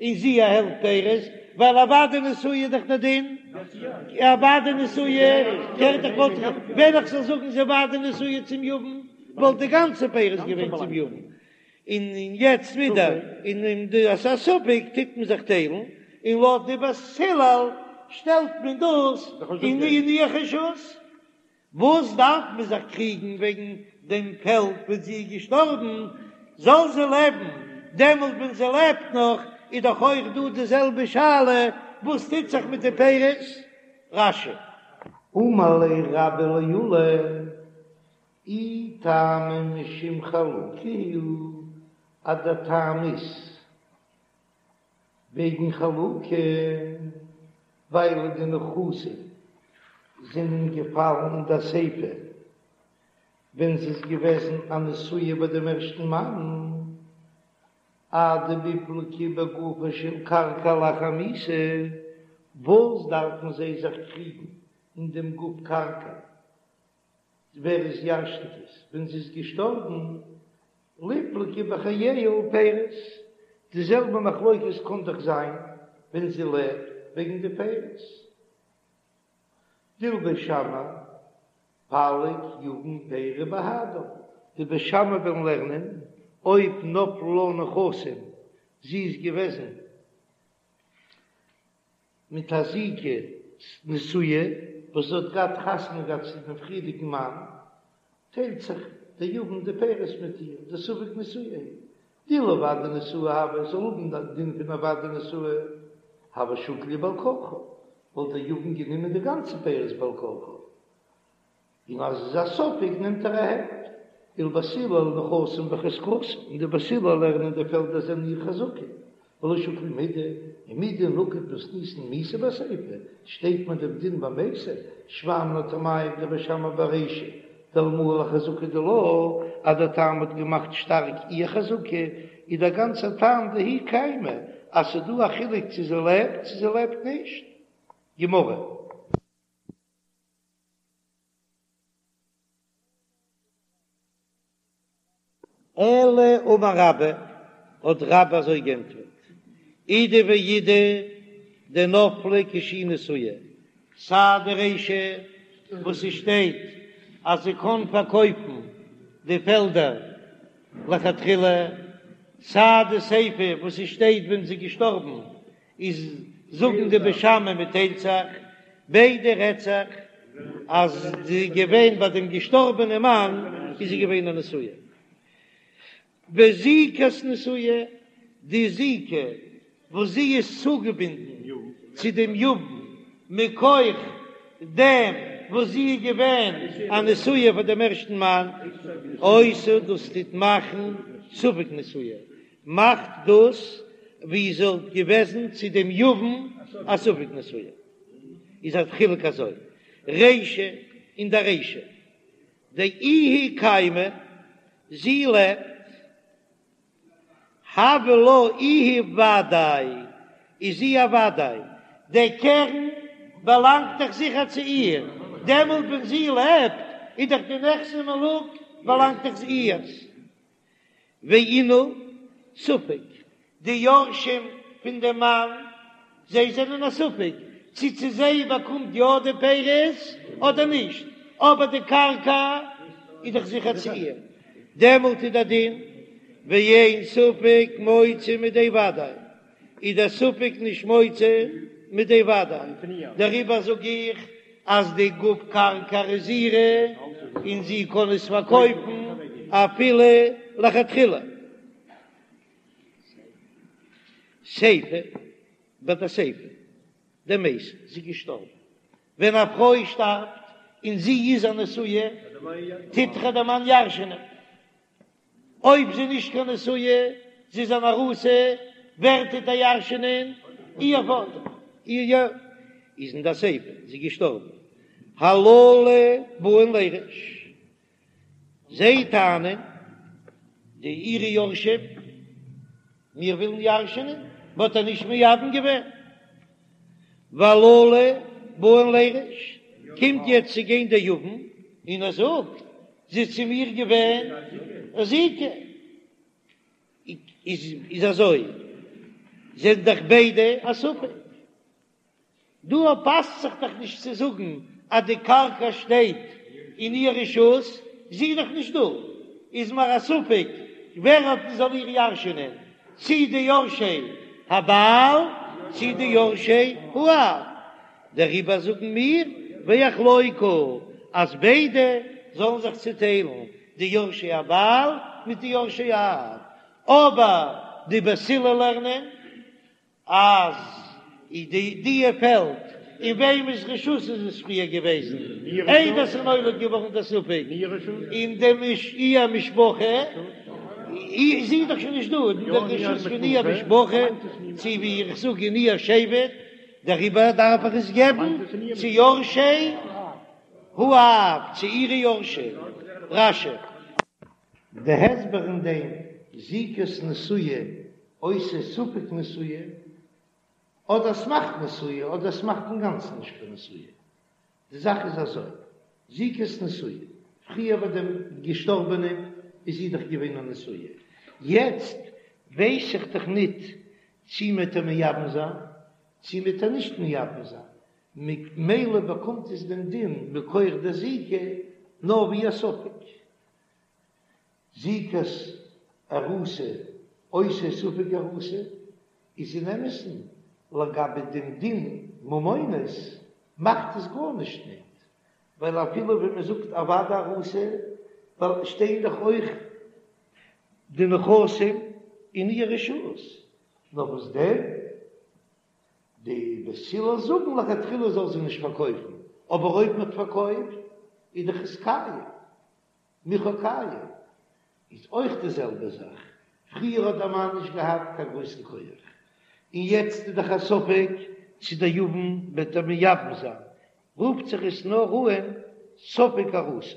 און זי א העלפט פירות, ווייל א ודאי נשואה איז דאך דער דין, א ודאי נשואה קערט דאך וואלט איך ווען איך זאל זאגן זי ודאי נשואה צום יבם וואלט די גאנצע פירות געווען צום יבם, און יעצט ווידער אין די אז ס'איז א ספק טוט מען זיך טיילן, און לויט די בית הלל שטעלט מען דאס אין איר רשות. וואס דארף מען זיך קריגן וועגן דעם פעלד ווען זי איז געשטארבן, זאל זי לעבן, דעמאלט ווען זי לעבט נאך איז דאך אויך דא די זעלבע שאלה, וואס טוט זיך מיט די פירות? רש"י. אמר ליה רבה לעולא, אי טעמא משום חלוקה הוא, אז דער טעם איז וועגן חלוקה, ווייל די נכסים זענען געפאלן אין דער סיפא ווען זי איז געוועזן א נשואה ביי דעם ערשטן מאן, אדמיפלגי בגופה של קרקע לאחר מיתה, וואס דארפן זיי זיך קריגן אין דעם גוף קרקע ווער עס ירשנט עס ווען זי איז געשטארבן, ליפלגו בחייה ולפירות, די זעלבע מחלוקת קען דאך זיין ווען זי לעבט וועגן די פירות. דלבית שמאי פליג יבם פירי בהדה, די בית שמאי וועלן לערנען אויב נפלו לה נכסים, זי איז געוועזן מיט א זיקה נשואה וואס זי האט געהאט חתונה געהאט צו דעם פריערדיגן מאן, טיילט זיך דער יבם די פירות מיט איר, דספק נשואה היא, דאילו ודאי נשואה הוה, זאל האבן די דין פון א ודאי נשואה, הוה שקיל להו בעל כרחה, וואלט דער יבם גענומען די גאנצע פירות בעל כרחה. און אז עס איז א ספק נעמט ער א העלפט, ולבית הלל נכסים בחזקתה, און די בית הלל לערנען די פעלדער זענען איר חזקה, ולא שקיל מידי, ומדנקט מתניתין מיתה בסיפא, שטייט מען דעם דין ביי מתה, שמע מינה טעמייהו דבית שמאי ברישא, דאלמוה לחזקה דילה, אז דער טעם האט געמאכט שטארק איר חזקה, איז דער גאנצער טעם דהיא קיימא, אז ס'איז דא א חילוק צו זי לעבט צו זי לעבט נישט. גמרא. אלא אמר רבה, האט רבה אזוי גענטפערט, אידי ואידי דנפלה כשהיא נשואה, סיי די רישא וואס ס'שטייט אז זי קען פארקויפן די פעלדער לכתחילה, סיי די סיפא וואס ס'שטייט ווען זי איז געשטארבן איז זאגן די בית שמאי מ'טיילט זיך, ביידע רעדט זיך אז זי איז געווען ביי דעם געשטארבענעם מאן איז זי געווען א נשואה. וזיקת נשואה, די זיקה וואס זי איז צוגעבינדן צו דעם יבם מכח דעם וואס זי איז געווען א נשואה פאר דעם ערשטן מאן, עושה דאס טוט מאכן ספק נשואה, מאכט דאס ווי זי וואלט געוועזן צו דעם יבם א ספק נשואה. איז א חילוק אזוי, רישא אין דער רישא דאיהי קיימא, זי לעבט, הויא לה איהי ודאי, איז זי א ודאי, דער קרן באלאנגט דאך זיכער צו איר, דעמאלט ווען זי לעבט איז דאך די נכסי מלוג באלאנגט דאך איהר'ס. ואינהו ספק, די יורשים פון דעם מאן, זיי זענען א ספק צו צו זיי באקומט יא די פירות אדער נישט, אבער די קרקע איז דאך זיכער צו איר, דעמאלט איז דער דין ואין ספק מוציא מידי ודאי, איז דער ספק נישט מוציא מידי ודאי, דעריבער זאג איך אז די גוף קרקע איז אירע און זי קען עס פארקויפן אפילו לכתחילה. סיפא, ביי די סיפא דמתה, זי איז געשטארבן. ווען א פרוי שטארבט און זי איז א נשואה, טוט דאך דער מאן ירש'ענען. אויב זי איז נישט קיין נשואה, זי איז אן ארוסה, ווער טוט איר ירש'ענען? איר פאטער. איר יא. איז אין די סיפא, זי איז געשטארבן. הללו באין לירש. זיי טענה'ן, די אירע יורשים, מיר ווילן ירש'ענען, מ'האט איר נישט מייבם געווען. והללו באין לירש, קומט יעצט צו גיין דער יבם און ער זאגט, זי איז צו מיר געווען א זיקה. איז אזוי, זענען דאך ביידע א ספק. דא פאסט זיך דאך נישט צו זאגן אז די קרקע שטייט אין איר רשות, זי איז דאך נישט דא, איז מיר א ספק ווער האט זאל איר ירש'נען, צי די יורשי הבעל צי די יורשי האב, דעריבער זאגן מיר ויחלוקו אז ביידע זאלן זיך צוטיילן, די יורשי הבעל מיט די יורשי האב, אבער די בית הלל לערנען אז די די פעלד אין וועמענס רשות איז עס פריער געוועזן איידער ס'איז נולד געווארן דער ספק אין דעם איר משפחה איז זי דאך שוין נישט דא אין דער רשות פון איר משפחה צו ווי איך זאג אין איר שבט דעריבער דארף איך עס געבן צו יורשי האב צו אירע יורשים. רש"י. די הסבר אין דעם זיקת נשואה עושה ספק נשואה, אדער ס'מאכט נשואה אדער ס'מאכט אינגאנצן נישט קיין נשואה. די זאך איז אזוי, זיקת נשואה, פריער ביי דעם געשטארבענעם איז זי דאך געווען א נשואה, יעצט ווייס איך דאך ניט צי מ'עט איר מייבם זיין צי מ'עט איר נישט מייבם זיין, ממילא באקומט עס דעם דין מכח דער זיקה נאר ווי א ספק. זיקת ארוסה עושה ספק ארוסה איז אין אמת'ן לגבי דעם דין ממונות מאכט עס גארנישט ניט, ווייל אפילו ווען מען זאגט א ודאי ארוסה ווייל שטייען דאך אויך די נכסים אין איר רשות, נאר וואס דען די בית הלל זאגן לכתחילה זאל זי נישט פארקויפן, אבער אויב מען האט פארקויפט איז דאך עס קיים. מכר קיים איז אויך די זעלבע זאך, פריער האט דער מאן נישט געהאט קיין גרויסן כח, און יעצט איז דאך א ספק צו דער יבם וועט איר מייבם זיין, רופט זיך עס נאר אן ספק ארוסה.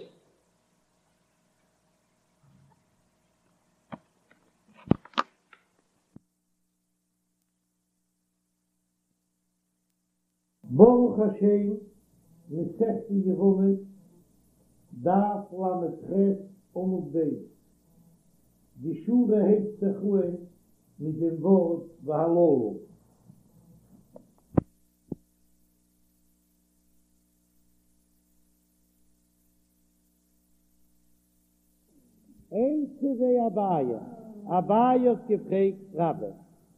ברוך השם, מסכת יבמות, דף ל"ח עמוד ב', די שורה הייבט זיך אהן. מיט דעם ווארט והללו. איתיביה אביי, אביי האט געפרעגט רבה,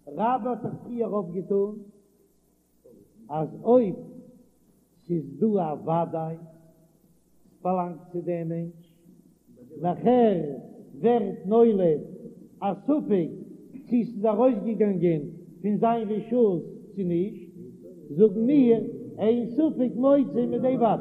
רבה האט דאך פריער אויפגעטון אז אויב ס'איז דא א וודאי ס'באלאנגט צו דעם מענטש, נאכער ווערט נולד א ספק צו ס'איז ארויסגעגאנגען פון זיין רשות צו נישט, זאגן מיר אין ספק מוציא מידי וודאי.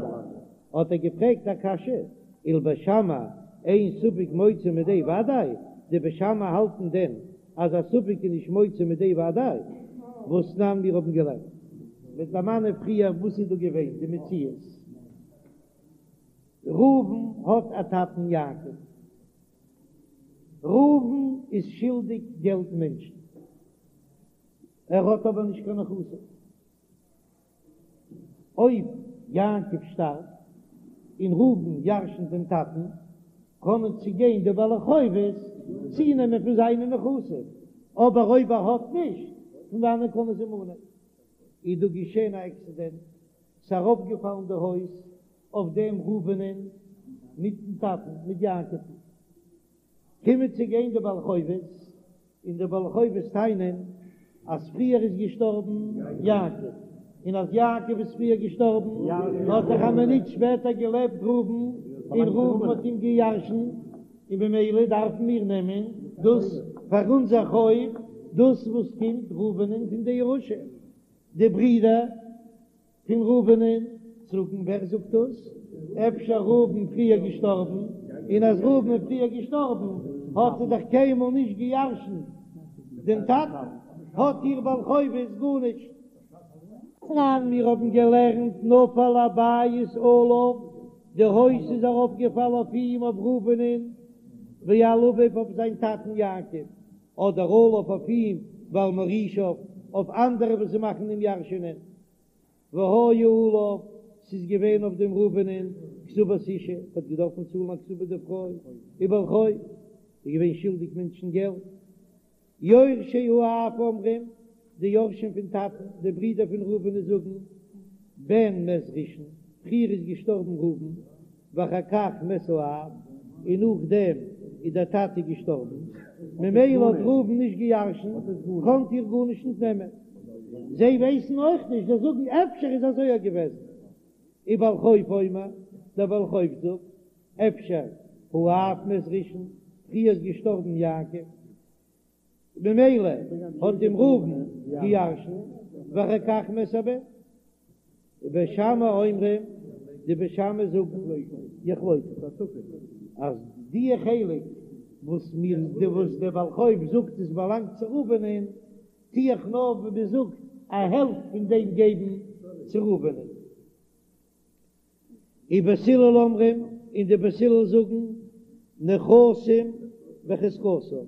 האט ער געפרעגט א קשיא, ולבית שמאי אין ספק מוציא מידי וודאי, די בית שמאי האלטן דען אז א ספק איז נישט מוציא מידי וודאי? והתנן מיר האבן געלערנט מ'וועט דערמאנען פריער וואס איז דא געווען די מציאות, ראובן האט א טאטן יעקב, ראובן איז שולדיג געלט מענטשן, ער האט אבער נישט קיין נכסים. אויב יעקב שטארבט און ראובן ירשנט דעם טאטן, קענען צוגיין די בעלי חובות צונעמען פון זיינע נכסים, אבער אויב ער האט נישט, פון וואנען קענען זיי מאנען? איז דא געשען א עקסידענט, ס'איז אראפגעפאלן די הויז אויף דעם ראובנ'ען מיטן טאטן, מיט יעקב'ן. קומען צו גיין די בעלי חובות, און די בעלי חובות טענה'ן אז פריער איז געשטארבן יעקב, און אז יעקב איז פריער געשטארבן האט דאך א מינוט שפעטער געלעבט ראובן, און ראובן האט אים געירשנט, און במילא דארפן מיר נעמען דאס פאר אונזער חוב, דאס וואס קומט ראובנ'ען פון די ירושה, די ברידער. פון ראובנ'ען זאגן ווער זאגט דאס? אפשר ראובן פריער געשטארבן, און אז ראובן איז פריער געשטארבן האט ער דאך קיינמאל נישט געירשנט דעם טאטן, האט איר בעל חובות גארנישט. תנן, מיר האבן געלערנט נפל הבית עליו, די הויז איז ארויפגעפאלן אויף אים אויף ראובנ'ען, ועל אביו אויף זיין טאטן יעקב, אדער עליו אויף אים ועל מורישיו אויף אנדערע וואס זיי מאכן אים ירש'ענען. והיה עליו, ס'איז געווען אויף דעם ראובנ'ען כתובת אשה, האט געדארפן צאלן א כתובה די פרוי, ובעל חוב, איז געווען שולדיג מענטשן געלט. יורשי האב אומרים, די יורשים פון טאטן, די ברידער פון ראובנ'ען זאגן, בן מת ראשון, פריער איז געשטארבן ראובן, ואחר כך מת האב, און נאכדעם איז דער טאטע געשטארבן, ממילא האט ראובן נישט געירשנט, קאנט איר גארנישט נישט נעמען. זיי ווייסן אויך נישט, זיי זאגן אפשר איז אזוי יא געוועזן. ובעל חוב אומר, דער בעל חוב זאגט, אפשר האב מת ראשון, פריער איז געשטארבן יעקב, ממילא האט אים ראובן געירשנט, ואחר כך מת הבן. ובית שמאי אומרים, די בית שמאי זאגן יחלוקו, אז די חלק וואס מיר די וואס דער בעל חוב זאגט עס באלאנגט צו ראובנ'ען, טו איך נאר ווי מען זאגט א העלפט פון דעם געבן צו ראובנ'ען. ובית הלל אומרים, און די בית הלל זאגן, נכסים בחזקתם,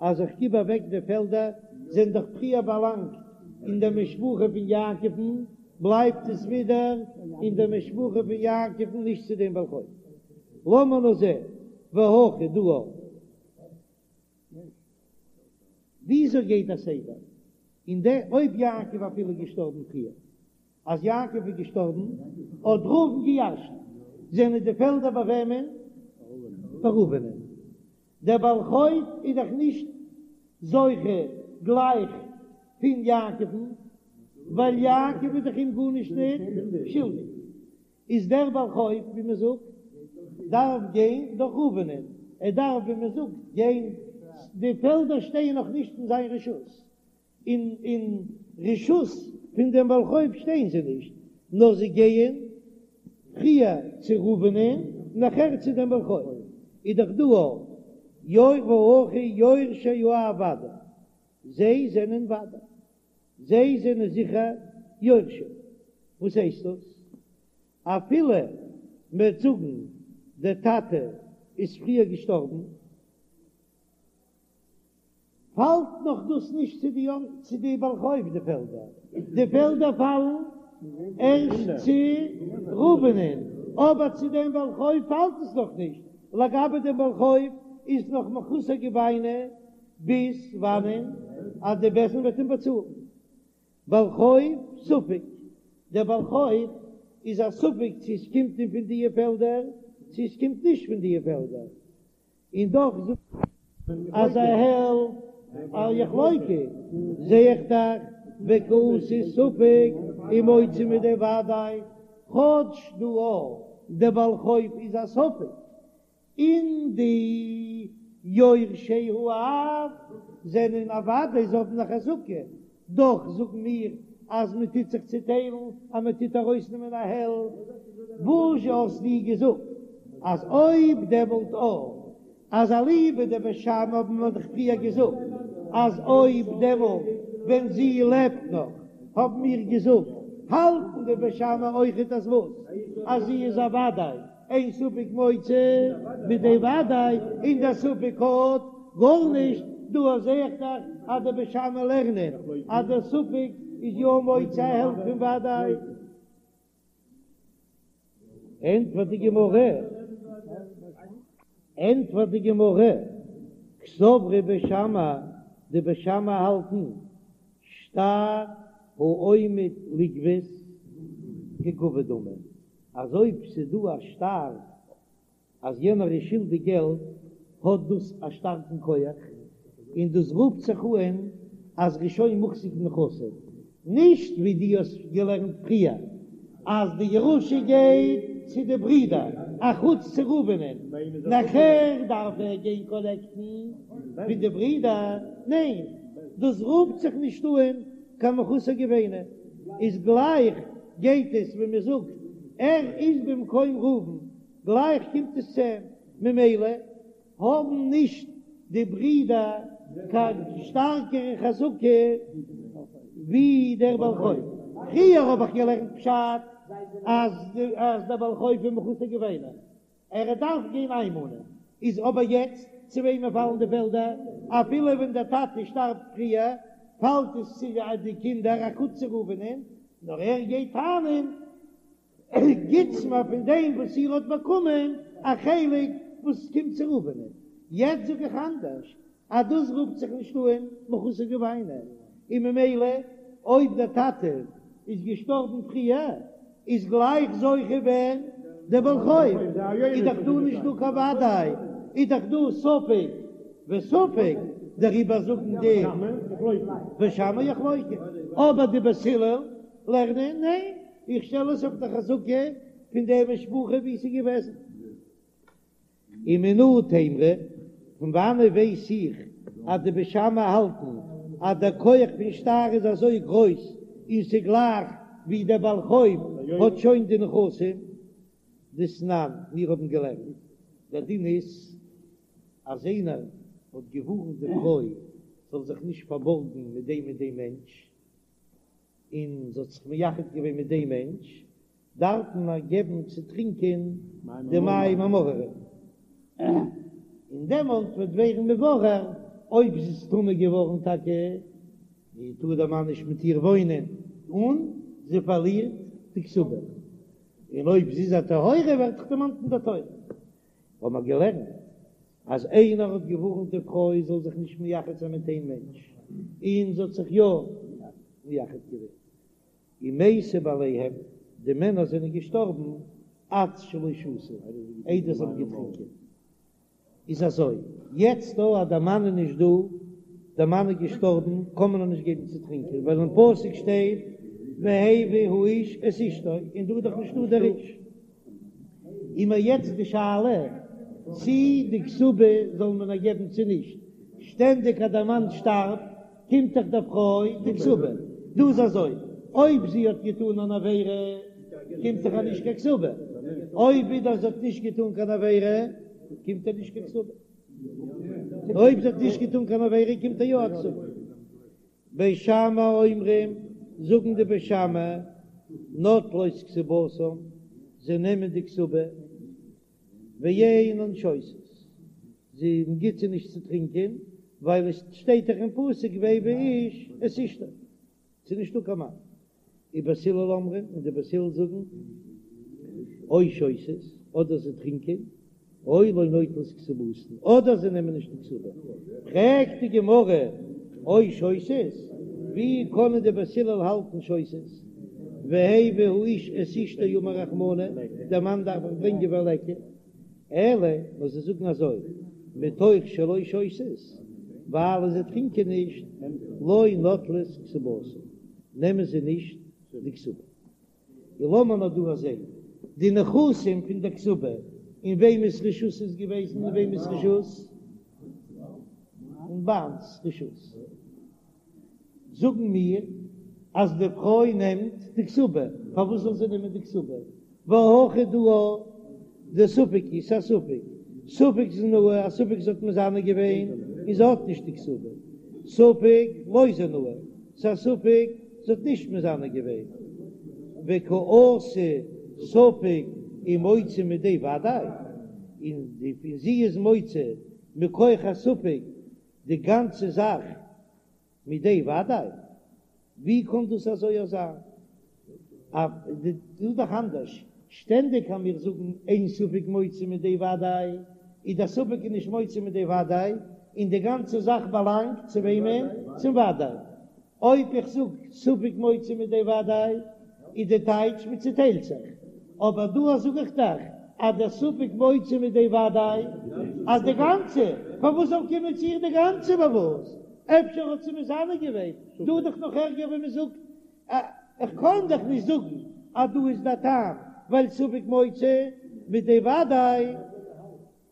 אז איך גיב אוועק די פעלדער, זענען דאך פריער באלאנגט אין דער משפחה פון יעקב'ן, בלייבט עס ווידער אין דער משפחה פון יעקב'ן, נישט צו דעם בעל חוב. לאמיר נאר זען, והכא דא. וויאזוי גייט דער סדר? און דער אויב יעקב אפילו געשטארבן פריער, אז יעקב איז געשטארבן האט ראובן געירשנט, זענען די פעלדער ביי וועמען? ביי ראובנ'ען. דער בעל חוב איז דאך נישט זוכה גלייך פון יעקב'ן, ווייל יעקב איז דאך אים גארנישט ניט שולדיג. איז דער בעל חוב, ווי מען זאגט, דארף גיין דורך ראובנ'ען, ער דארף, ווי מען זאגט, גיין, די פעלדער שטייען נאך נישט אין זיין רשות, אין אין רשות פון דעם בעל חוב שטייען זיי נישט, נאר זיי גייען פריער צו ראובנ'ען נאכער צו דעם בעל חוב, איז דאך דא אויך והכא יורשי האב ודאי, זיי זענען ודאי, זיי זענען זיכער יורשים, וואס הייסט דאס? אפילו מ'וועט זאגן דער טאטע איז פריער געשטארבן, פאלט נאך דאס נישט צו די צו די בעל חוב די פעלדער, די פעלדער פאלן ערשט צו ראובנ'ען, אבער צו דעם בעל חוב פאלט עס נאך נישט, לגבי דעם בעל חוב איז נאך מחוסר גוביינא. ביז וואנען אז די בית דין וועט אים באצאלן. בעל חוב ספק, דער בעל חוב איז א ספק צו עס קומט אים פון דיע פעלדער צו עס קומט נישט פון דיע פעלדער, און דאך זאגט אז א העלפט יחלוקו, זע איך דאך וקאתי ספק ומוציא מידי ודאי, כאטש דא אויך דער בעל חוב איז א ספק, און די יורשי האב זענען א ודאי, זיי האבן א חזקה, דאך זאגן מיר אז מען טוט זיך צוטיילן, אז מען טוט ארויסנעמען א העלפט, וואזשע האסטו געזאגט אז אויב דעמאלט אויך אז אליבא דבית שמאי האבן מיר דאך פריער געזאגט אז אויב דעמאלט ווען זי לעבט נאך האבן מיר געזאגט האלטן די בית שמאי אויכעט אז וואס אז זי איז א ודאי אין ספק מוציא מידי ודאי און דער ספק האט גארנישט, דא זעה איך דאך אז די בית שמאי לערנען אז דער ספק איז יא מוציא א העלפט פון ודאי. ענטפערט די גמרא, ענטפערט די גמרא, קסברי בית שמאי, די בית שמאי האלטן שטר העומד לגבות כגבוי דמי, אז אויב ס'איז דא א שטר אז יענער איז שולדיג געלט האט דאס א שטארקן כח, און דאס רופט זיך אן אז ר'איז שוין מוחזק בנכסים, נישט ווי דו האסט געלערנט פריער אז די ירושה גייט צו די ברידער אחוץ צו ראובנ'ען, נאכער דארף ער גיין קאלעקטן פון די ברידער, ניין דאס רופט זיך נישט אן קיין מחוסר גוביינא, איז גלייך גייט עס ווי מען זאגט ער איז במקום ראובן גלייך קומט עס צו אים, ממילא האבן נישט די ברידער קיין שטארקערע חזקה ווי דער בעל חוב. פריער האב איך געלערנט פשט אז אז דער בעל חוב איז מחוסר גוביינא, ער דארף גיין איינמאנען, איז אבער יעצט צו וועמען פאלן די פעלדער? אפילו ווען דער טאטע שטארבט פריער פאלט עס צו די קינדער אחוץ צו ראובנ'ען, נאר ער גייט טענה'ן גיטס מיר פון דעם וואס איר האט באקומען א חלק וואס קומט צו ראובנ'ען. יעצט זאג איך אנדערש, אז דאס רופט זיך נישט אן מחוסר גוביינא, און ממילא אויב דער טאטע איז געשטארבן פריער איז גלייך זוכה ווער? דער בעל חוב, איז דאך דא נישט דא קיין וודאי, איז דאך דא ספק וספק, דעריבער זאגן די בית שמאי יחלוקו, אבער די בית הלל לערנען ניין, איך שטעל עס אויף די חזקה פון די משפחה ווי ס'איז געוועזן. ומנא תימרא, פון וואנעט ווייס איך אז די בית שמאי האלטן אז דער כח פון שטר איז אזוי גרויס און ס'גלייך ווי דער בעל חוב האט שוין די נכסים? דתנן, מיר האבן געלערנט, דער דין איז אז איינער האט געווארנט די פרוי זאל זיך נישט פארבארגן מיט דעם און דעם מענטש, און זי האט זיך מייחד געווען מיט דעם מענטש, דארף מען איר געבן צו טרינקען די מים המאררים, און דעמאלט וועט ווערן מבורר אויב זי איז טמא געווארן טאקע, טאר דער מאן נישט מיט איר וואוינען, און זי פארלירט די כתובה, און אויב זי איז א טהורה ווערט דאך דערמאנט אין דער תורה. האבן מיר געלערנט אז איינער האט געווארנט די פרוי זאל זיך נישט מייחד זיין מיט איין מענטש, און זי האט זיך יא מייחד געווען, ומתו בעליהם, די מענער זענען געשטארבן עד שלא שתו, איידער זיי האבן געטרינקען. איז אזוי, יעצט דא אז דער מאן איז נישט דא, דער מאן איז געשטארבן, קען מען איר נישט געבן צו טרינקען, ווייל אין פסוק שטייט והביא האיש את אשתו, און דא איז דאך נישטא דער איש. איז מיר יעצט די שאלה צי די כתובה זאל מען איר געבן צו נישט, שטענדיג אז דער מאן שטארבט קומט דאך דער פרוי די כתובה, דא איז אזוי, אויב זי האט געטאן אן עבירה קומט דאך איר נישט קיין כתובה, אויב ווידער זי האט נישט געטאן קיין עבירה קומט איר נישט קיין כתובה, אויב זי האט נישט געטאן קיין עבירה קומט איר יא א כתובה. בית שמאי אומרים, זאגן די בית שמאי, נוטלות כתובתן, זיי נעמען די כתובה, ואינן שותות, זי גיט זיי נישט צו טרינקען, ווייל עס שטייט דאך אין פסוק והביא האיש את אשתו, ס'איז נישטא קיין מאן. ובית הלל אומרים, און די בית הלל זאגן, או שותות, אדער זיי טרינקען. או לא נוטלות כתובתן, אדער זיי נעמען נישט די כתובה. פרעגט די גמרא, או שותות, ווי קענען די בית הלל האלטן שותות? והביא האיש את אשתו אמר רחמנא, דער מאן דארף דאך ברענגען וליכא. אלא נאר זיי זאגן אזוי, מתוך שלא שותות, ווייל זיי טרינקען נישט, לא נוטלות כתובתן, נעמען זיי נישט די כתובה. און לאמיר נאר דא זען די נכסים פון די כתובה, אין וועמענס רשות איז געוועזן אין וועמענס רשות? אין בעל'ס רשות. זאגן מיר אז די פרוי נעמט די כתובה, פארוואס זאל זי נעמען די כתובה? והא הכא דא דספק הוא, ס'איז א ספק, ספק זנאי, א ספק זי האט מזנה געווען און זי האט נישט די כתובה, ספק לא זנאי, ס'איז א ספק זי האט נישט מזנה געווען, וקא אתי ספק ומוציא מידי ודאי, און זי איז מוציא מכח הספק די גאנצע זאך מידי ודאי? ווי קען דאס אזוי זיין? דא איז דאך אנדערש, שטענדיג אז מיר זאגן אין ספק מוציא מידי ודאי, איז דער ספק איז נישט מוציא מידי ודאי, און די גאנצע זאך באלאנגט צו וועמען? צום ודאי. אויב איך זאג ספק מוציא מידי ודאי, איז די טייטש מען צוטיילט זיך, אבער דא זאג איך דאך אז דער ספק מוציא מידי ודאי אז די גאנצע, פארוואס זאל קומען צו איר די גאנצע פארוואס? אפשר האט זי מזנה געווען, דא איז דאך נאך ערגער ווען מען זאגט, איך קען דאך נישט זאגן אז דא איז דער טעם ווייל ספק מוציא מידי ודאי,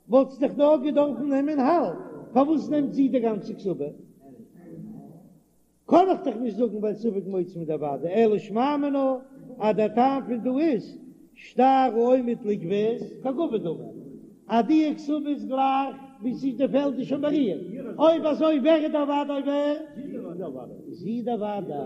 וואלט זי דאך נאר געדארפן נעמען האלב, פארוואס נעמט זי די גאנצע כתובה? קען איך דאך נישט זאגן ווייל ספק מוציא מידי ודאי, אלא שמע מינה אז דער טעם פון דא איז שטר העומד לגבות כגבוי דמי, אז די כתובה איז גלייך ווי ס'איז די פעלד איז שוין ביי איר, אויב אזוי ווער איז דער ודאי ווער? זי דער ודאי,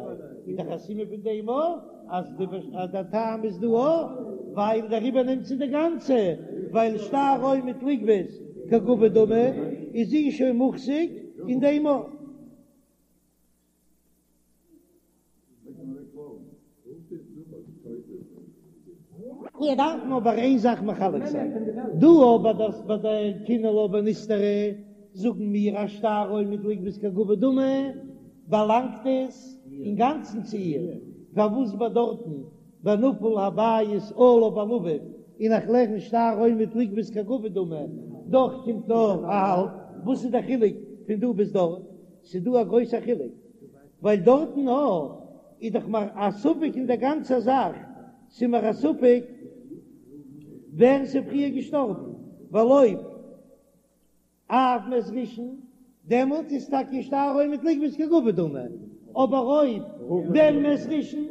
איז דאך א סימן פון דעם אויך אז דער טעם איז דא אויך ווייל דעריבער נעמט זי די גאנצע, ווייל שטר העומד לגבות כגבוי דמי איז זי שוין מוחזק אין דעם אויך. מיר דארפן אבער איין זאך מחלק זיין, דא אבער דאס ביי די קינא לה ונסתרה זאגן מיר אז שטר העומד לגבות כגבוי דמי באלאנגט עס אינגאנצן צו איר, פארוואס ביי דארטן ביי נפל הבית עליו ועל אביו און איך לערן שטר העומד לגבות כגבוי דמי דאך קומט נאר א האלב, וואס איז די חילוק פון דא ביז דארט? ס'איז דא א גרויסע חילוק, ווייל דארטן א איז דאך מיר א ספק אין דער גאנצער זאך, ס'איז מיר א ספק ווער ס'איז פריער געשטארבן, ווייל אויב אב מת ראשון, דעמאלט איז טאקע שטר העומד לגבות כגבוי דמי, אבער אויב בן מת ראשון,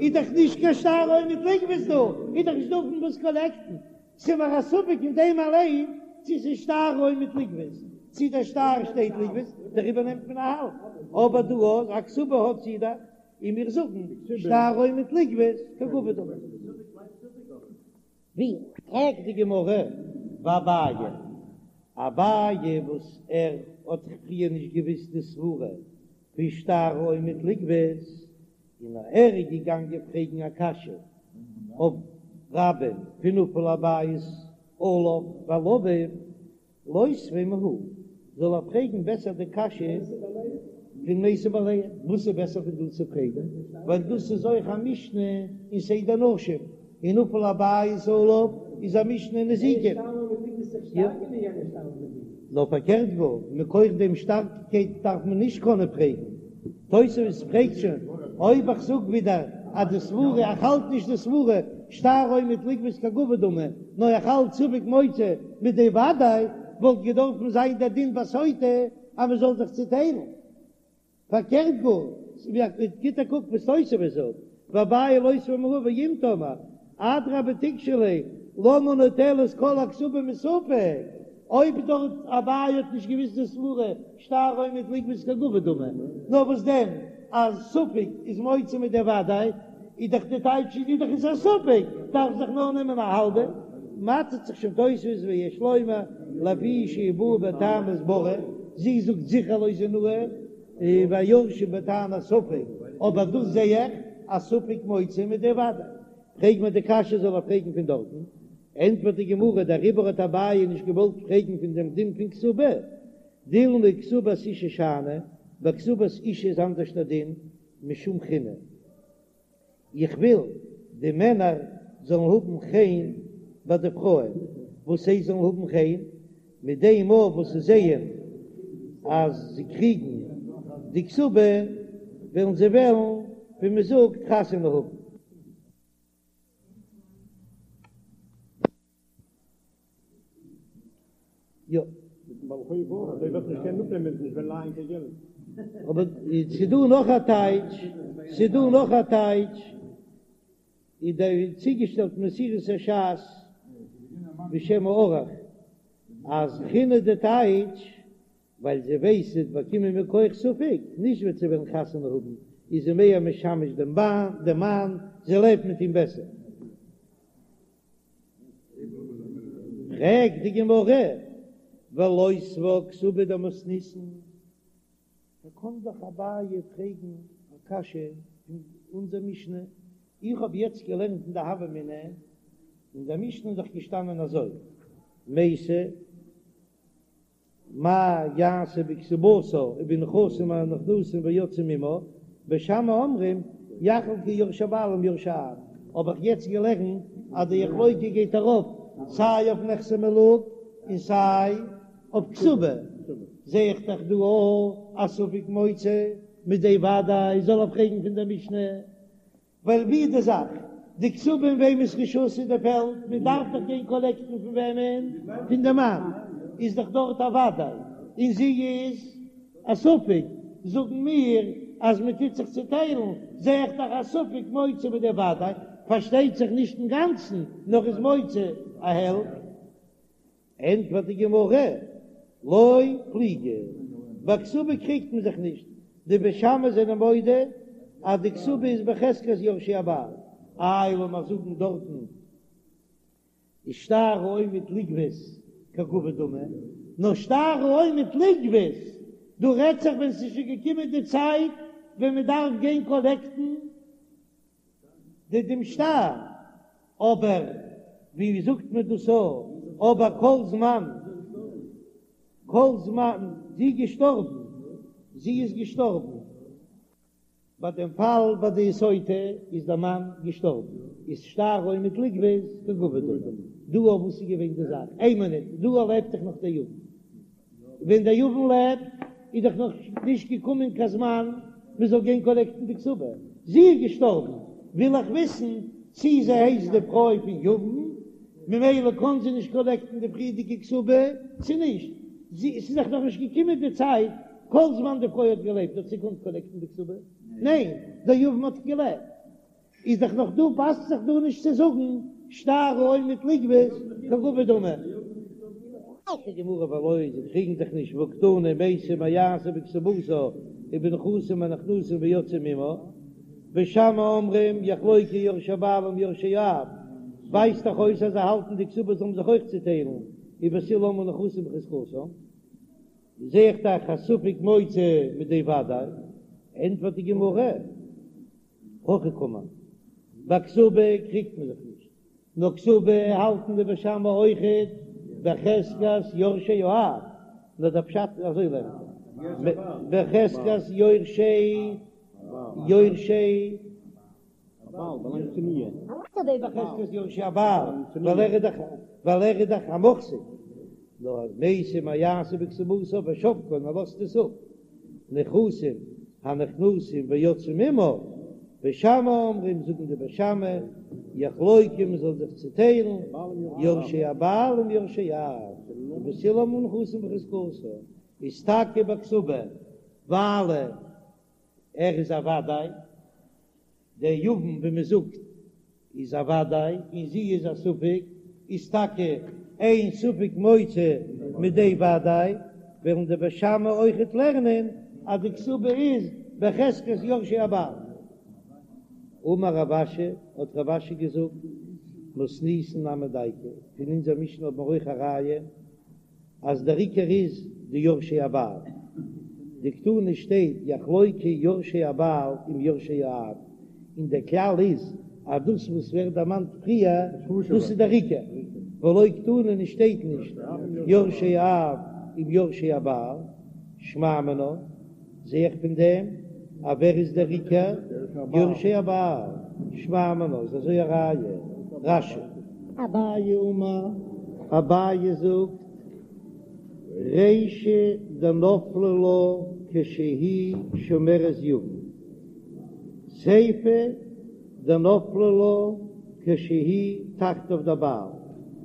איז דאך נישט קיין שטר העומד לגבות דא, איז דאך נישט דא פון וואס קאלעקטן, ס'איז מיר א ספק אין דעם אליין צו ס'איז שטר העומד לגבות, צו דער שטר שטייט לגבות, דעריבער נעמט מען א האלב, אבער דא אז א כתובה האט זי דאך, און מיר זאגן שטר העומד לגבות כגבוי דמי. ווי פרעגט די גמרא ואביי, אביי וואס ער האט זיך פריער נישט געוויסט די סברה פון שטר העומד לגבות, און ער איז געגאנגען פרעגן א קשיא אויף רבה'ן פון נפל הבית עליו ועל אביו, לותביה מהא, זאל ער פרעגן בעסער די קשיא פון מתו בעליהן, וואס איז בעסער פון דא צו פרעגן, ווייל דאס איז אויך א משנה אין סדר נשים, און נפל הבית עליו איז א משנה אין נזיקין. נאר פארקערט גאר, מכח דעם שטארקייט דארף מען נישט קענען פרעגן. תוספות פרעגט שוין, אויב איך זאג ווידער אז די סברה, איך האלט נישט די סברה, שטר העומד לגבות כגבוי דמי, נאר איך האלט ספק מוציא מידי ודאי, וואלט געדארפן זיין דער דין ביי סוטה אז מען זאל זיך צוטיילן. פארקערט גאר, גיט א קוק וואס תוספות זאגט, ואביי לותביה מהא ואם תאמר, אדרבה תיקשי ליה, למה נוטלת כל הכתובה מספק, אויב דארט אביי האט נישט געוויסט די סברה שטר העומד לגבות כגבוי דמי, נאר וואס דען אז ספק איז מוציא מידי ודאי, איז דאך די טייטש איז דאך איז א ספק, דארף זיך נאר נעמען א האלבע, מוטשעט זיך שוין תוספות ויש לומר לפי שהיא באה בטענת ברי, זי זאגט זיכער לא זינוה, והיורשים בטענת ספק, אבער דאס זע איך אז ספק מוציא מידי ודאי, פרעג מיר די קשיא זאל ער פרעגן פון דארטן. ענטפערט די גמרא, דעריבער האט אביי נישט געוואלט פרעגן פון דעם דין פון כתובה, דילמא כתובת אשה שאני, ביי כתובת אשה איז אנדערש דער דין, משום חינא. איך וויל די מענער זאלן האבן חן ביי די פרויען, וואס זיי זאלן האבן חן מיט דעם מאל וואס זיי זעען אז זיי קריגן די כתובה, וועלן זיי וועלן, ווי מען זאגט, חתונה האבן. יא. מיטן בעל חוב אויך, אזוי וועט נישט קענען אפנעמען ווען נישט וועלן לייען קיין געלט. אבער ס'דא נאך א טייטש, ס'דא נאך א טייטש, איז דער צוגעשטעלט מסורת הש"ס בשם הערוך, אז חינא די טייטש, ווייל זי ווייסט זי וועט באקומען מכח ספק, נישט וועט זי וועלן חתונה האבן, איז זי מער משמש דעם מאן, זי לעבט מיט אים בעסער. פרעגט די גמרא, ולותבה כתובה דמתניתין, דא קען דאך אביי פרעגן א קשיא פון אונזער משנה, איך האב יעצט געלערנט אין די הוה אמינא, אין דער משנה איז דאך געשטאנען אזוי, מתה מה יעשה בכתובתה ובנכסים הנכנסים ויוצאים עמה, בית שמאי אומרים יחלקו יורשי הבעל עם יורשי האב, האב איך יעצט געלערנט אז די יחלוקו גייט ארויף סיי אויף נכסי מלוג און סיי אויף כתובה, זע איך דאך דא אויך א ספק מוציא מידי ודאי זאל ער פרעגן פון דער משנה. ווייל ווי איז די זאך? די כתובה אין וועמענס רשות איז די פעלד? מען דארף דאך גיין קאלעקטן פון וועמען? פון די מאן, איז דאך דארט א ודאי, און זי איז א ספק, זאגן מיר אז מען טוט זיך צוטיילן, זע איך דאך א ספק מוציא מידי ודאי, פארשטייט זיך נישט אינגאנצן, נאר איז מוציא א העלפט. ענטפערט די גמרא, לא פליגי, ביי כתובה קריגט מען זיך נישט, די בית שמאי זענען מודה אז די כתובה איז בחזקת יורשי הבעל, איי לאמיר זאגן דארטן איז שטר העומד לגבות כגבוי דמי, נאר שטר העומד לגבות, דא רעדט זיך ווען ס'איז שוין געקומען די צייט ווען מ'דארף גיין קאלעקטן די דעם שטר, אבער ווי זאגט מען דאס א, אבער כל זמן, כל זמן זי איז געשטארבן, זי איז געשטארבן, ביי דעם פאל ביי די סוטה איז דער מאן געשטארבן, איז שטר העומד לגבות כגבוי דמי, דא אויף וואס איז געווען די זאך, איין מינוט, דא לעבט דאך נאך דער יבם. ווען דער יבם לעבט איז דאך נאך נישט געקומען קיין זמן מען זאל גיין קאלעקטן די כתובה, זי איז געשטארבן, וויל איך וויסן צי זי הייסט די פרוי פון יבם, ממילא קען זי נישט קאלעקטן די פריערדיגע כתובה, צי נישט, זי, עס איז דאך נאך נישט געקומען די צייט, כל זמן די פרוי האט געלעבט האט זי געקאנט קאלעקטן די כתובה? ניין, דער יבם האט געלעבט. איז דאך נאך דא פאסט זיך דא נישט צו זאגן שטר העומד לגבות כגבוי דמי. זאגט די גמרא ולא זיי קריגן זיך נישט והא קתני מתה מה יעשה בכתובתה ובנכסים הנכנסים ויוצאים עמה בית שמאי אומרים יחלוקו יורשי הבעל עם יורשי האב ווייזט דאך אויס אז זיי האלטן די כתובה זאל מען זיך אויך צוטיילן ובית הלל אומרים נכסים בחזקתן זע איך דאך אז ספק מוציא מידי ודאי ענטפערט די גמרא. הכי קאמר, ביי כתובה קריגט מען זיך נישט, נאר כתובה האלטן די בית שמאי אויכעט בחזקת יורשי האב, נאר דער פשט איז אזוי לערנט ער, בחזקת יורשי יורשי בחזקת יורשי הבעל, ווייל ער איז דאך ווייל ער איז דאך א מוחזק, נאר מתה מה יעשה בכתובתה ושבקה און ער לאזט עס אפ. נכסים הנכנסים ויוצאים עמה, בית שמאי אומרים, זאגן די בית שמאי, יחלוקו מען זאל זיך צוטיילן, יורשי הבעל עם יורשי האב, ובית הלל אומרים נכסים בחזקתן, איז טאקע ביי כתובה, ווייל ער איז א וודאי. דער יבם ווי מען זאגט איז א וודאי און זי איז א ספק, איז טאקע אין ספק מוציא מידי וודאי, וועלן די בית שמאי אויכעט לערנען אז די כתובה איז בחזקת יורשי הבעל. אמר רב אשי, האט רב אשי געזאגט, מתניתין נמי דייקא, פון אונזער משנה האט מען אויך א ראיה, אז דער עיקר איז די יורשי הבעל, דקתני שטייט יחלוקו יורשי הבעל עם יורשי האב, און דער כלל איז אז דאס וואס ווערט דערמאנט פריער דאס איז דער עיקר. ולא קתני און שטייט נישט יורשי האב עם יורשי הבעל, שמע מינה, זע איך פון דעם אז ווער איז דער עיקר יורשי הבעל, שמע מינה איז אזוי א ראיה, רש"י. אביי אמר, אביי זאגט, רישא דנפלה לה כשהיא שומרת יבם, סיפא דנפלה לה כשהיא תחתיו דבעל.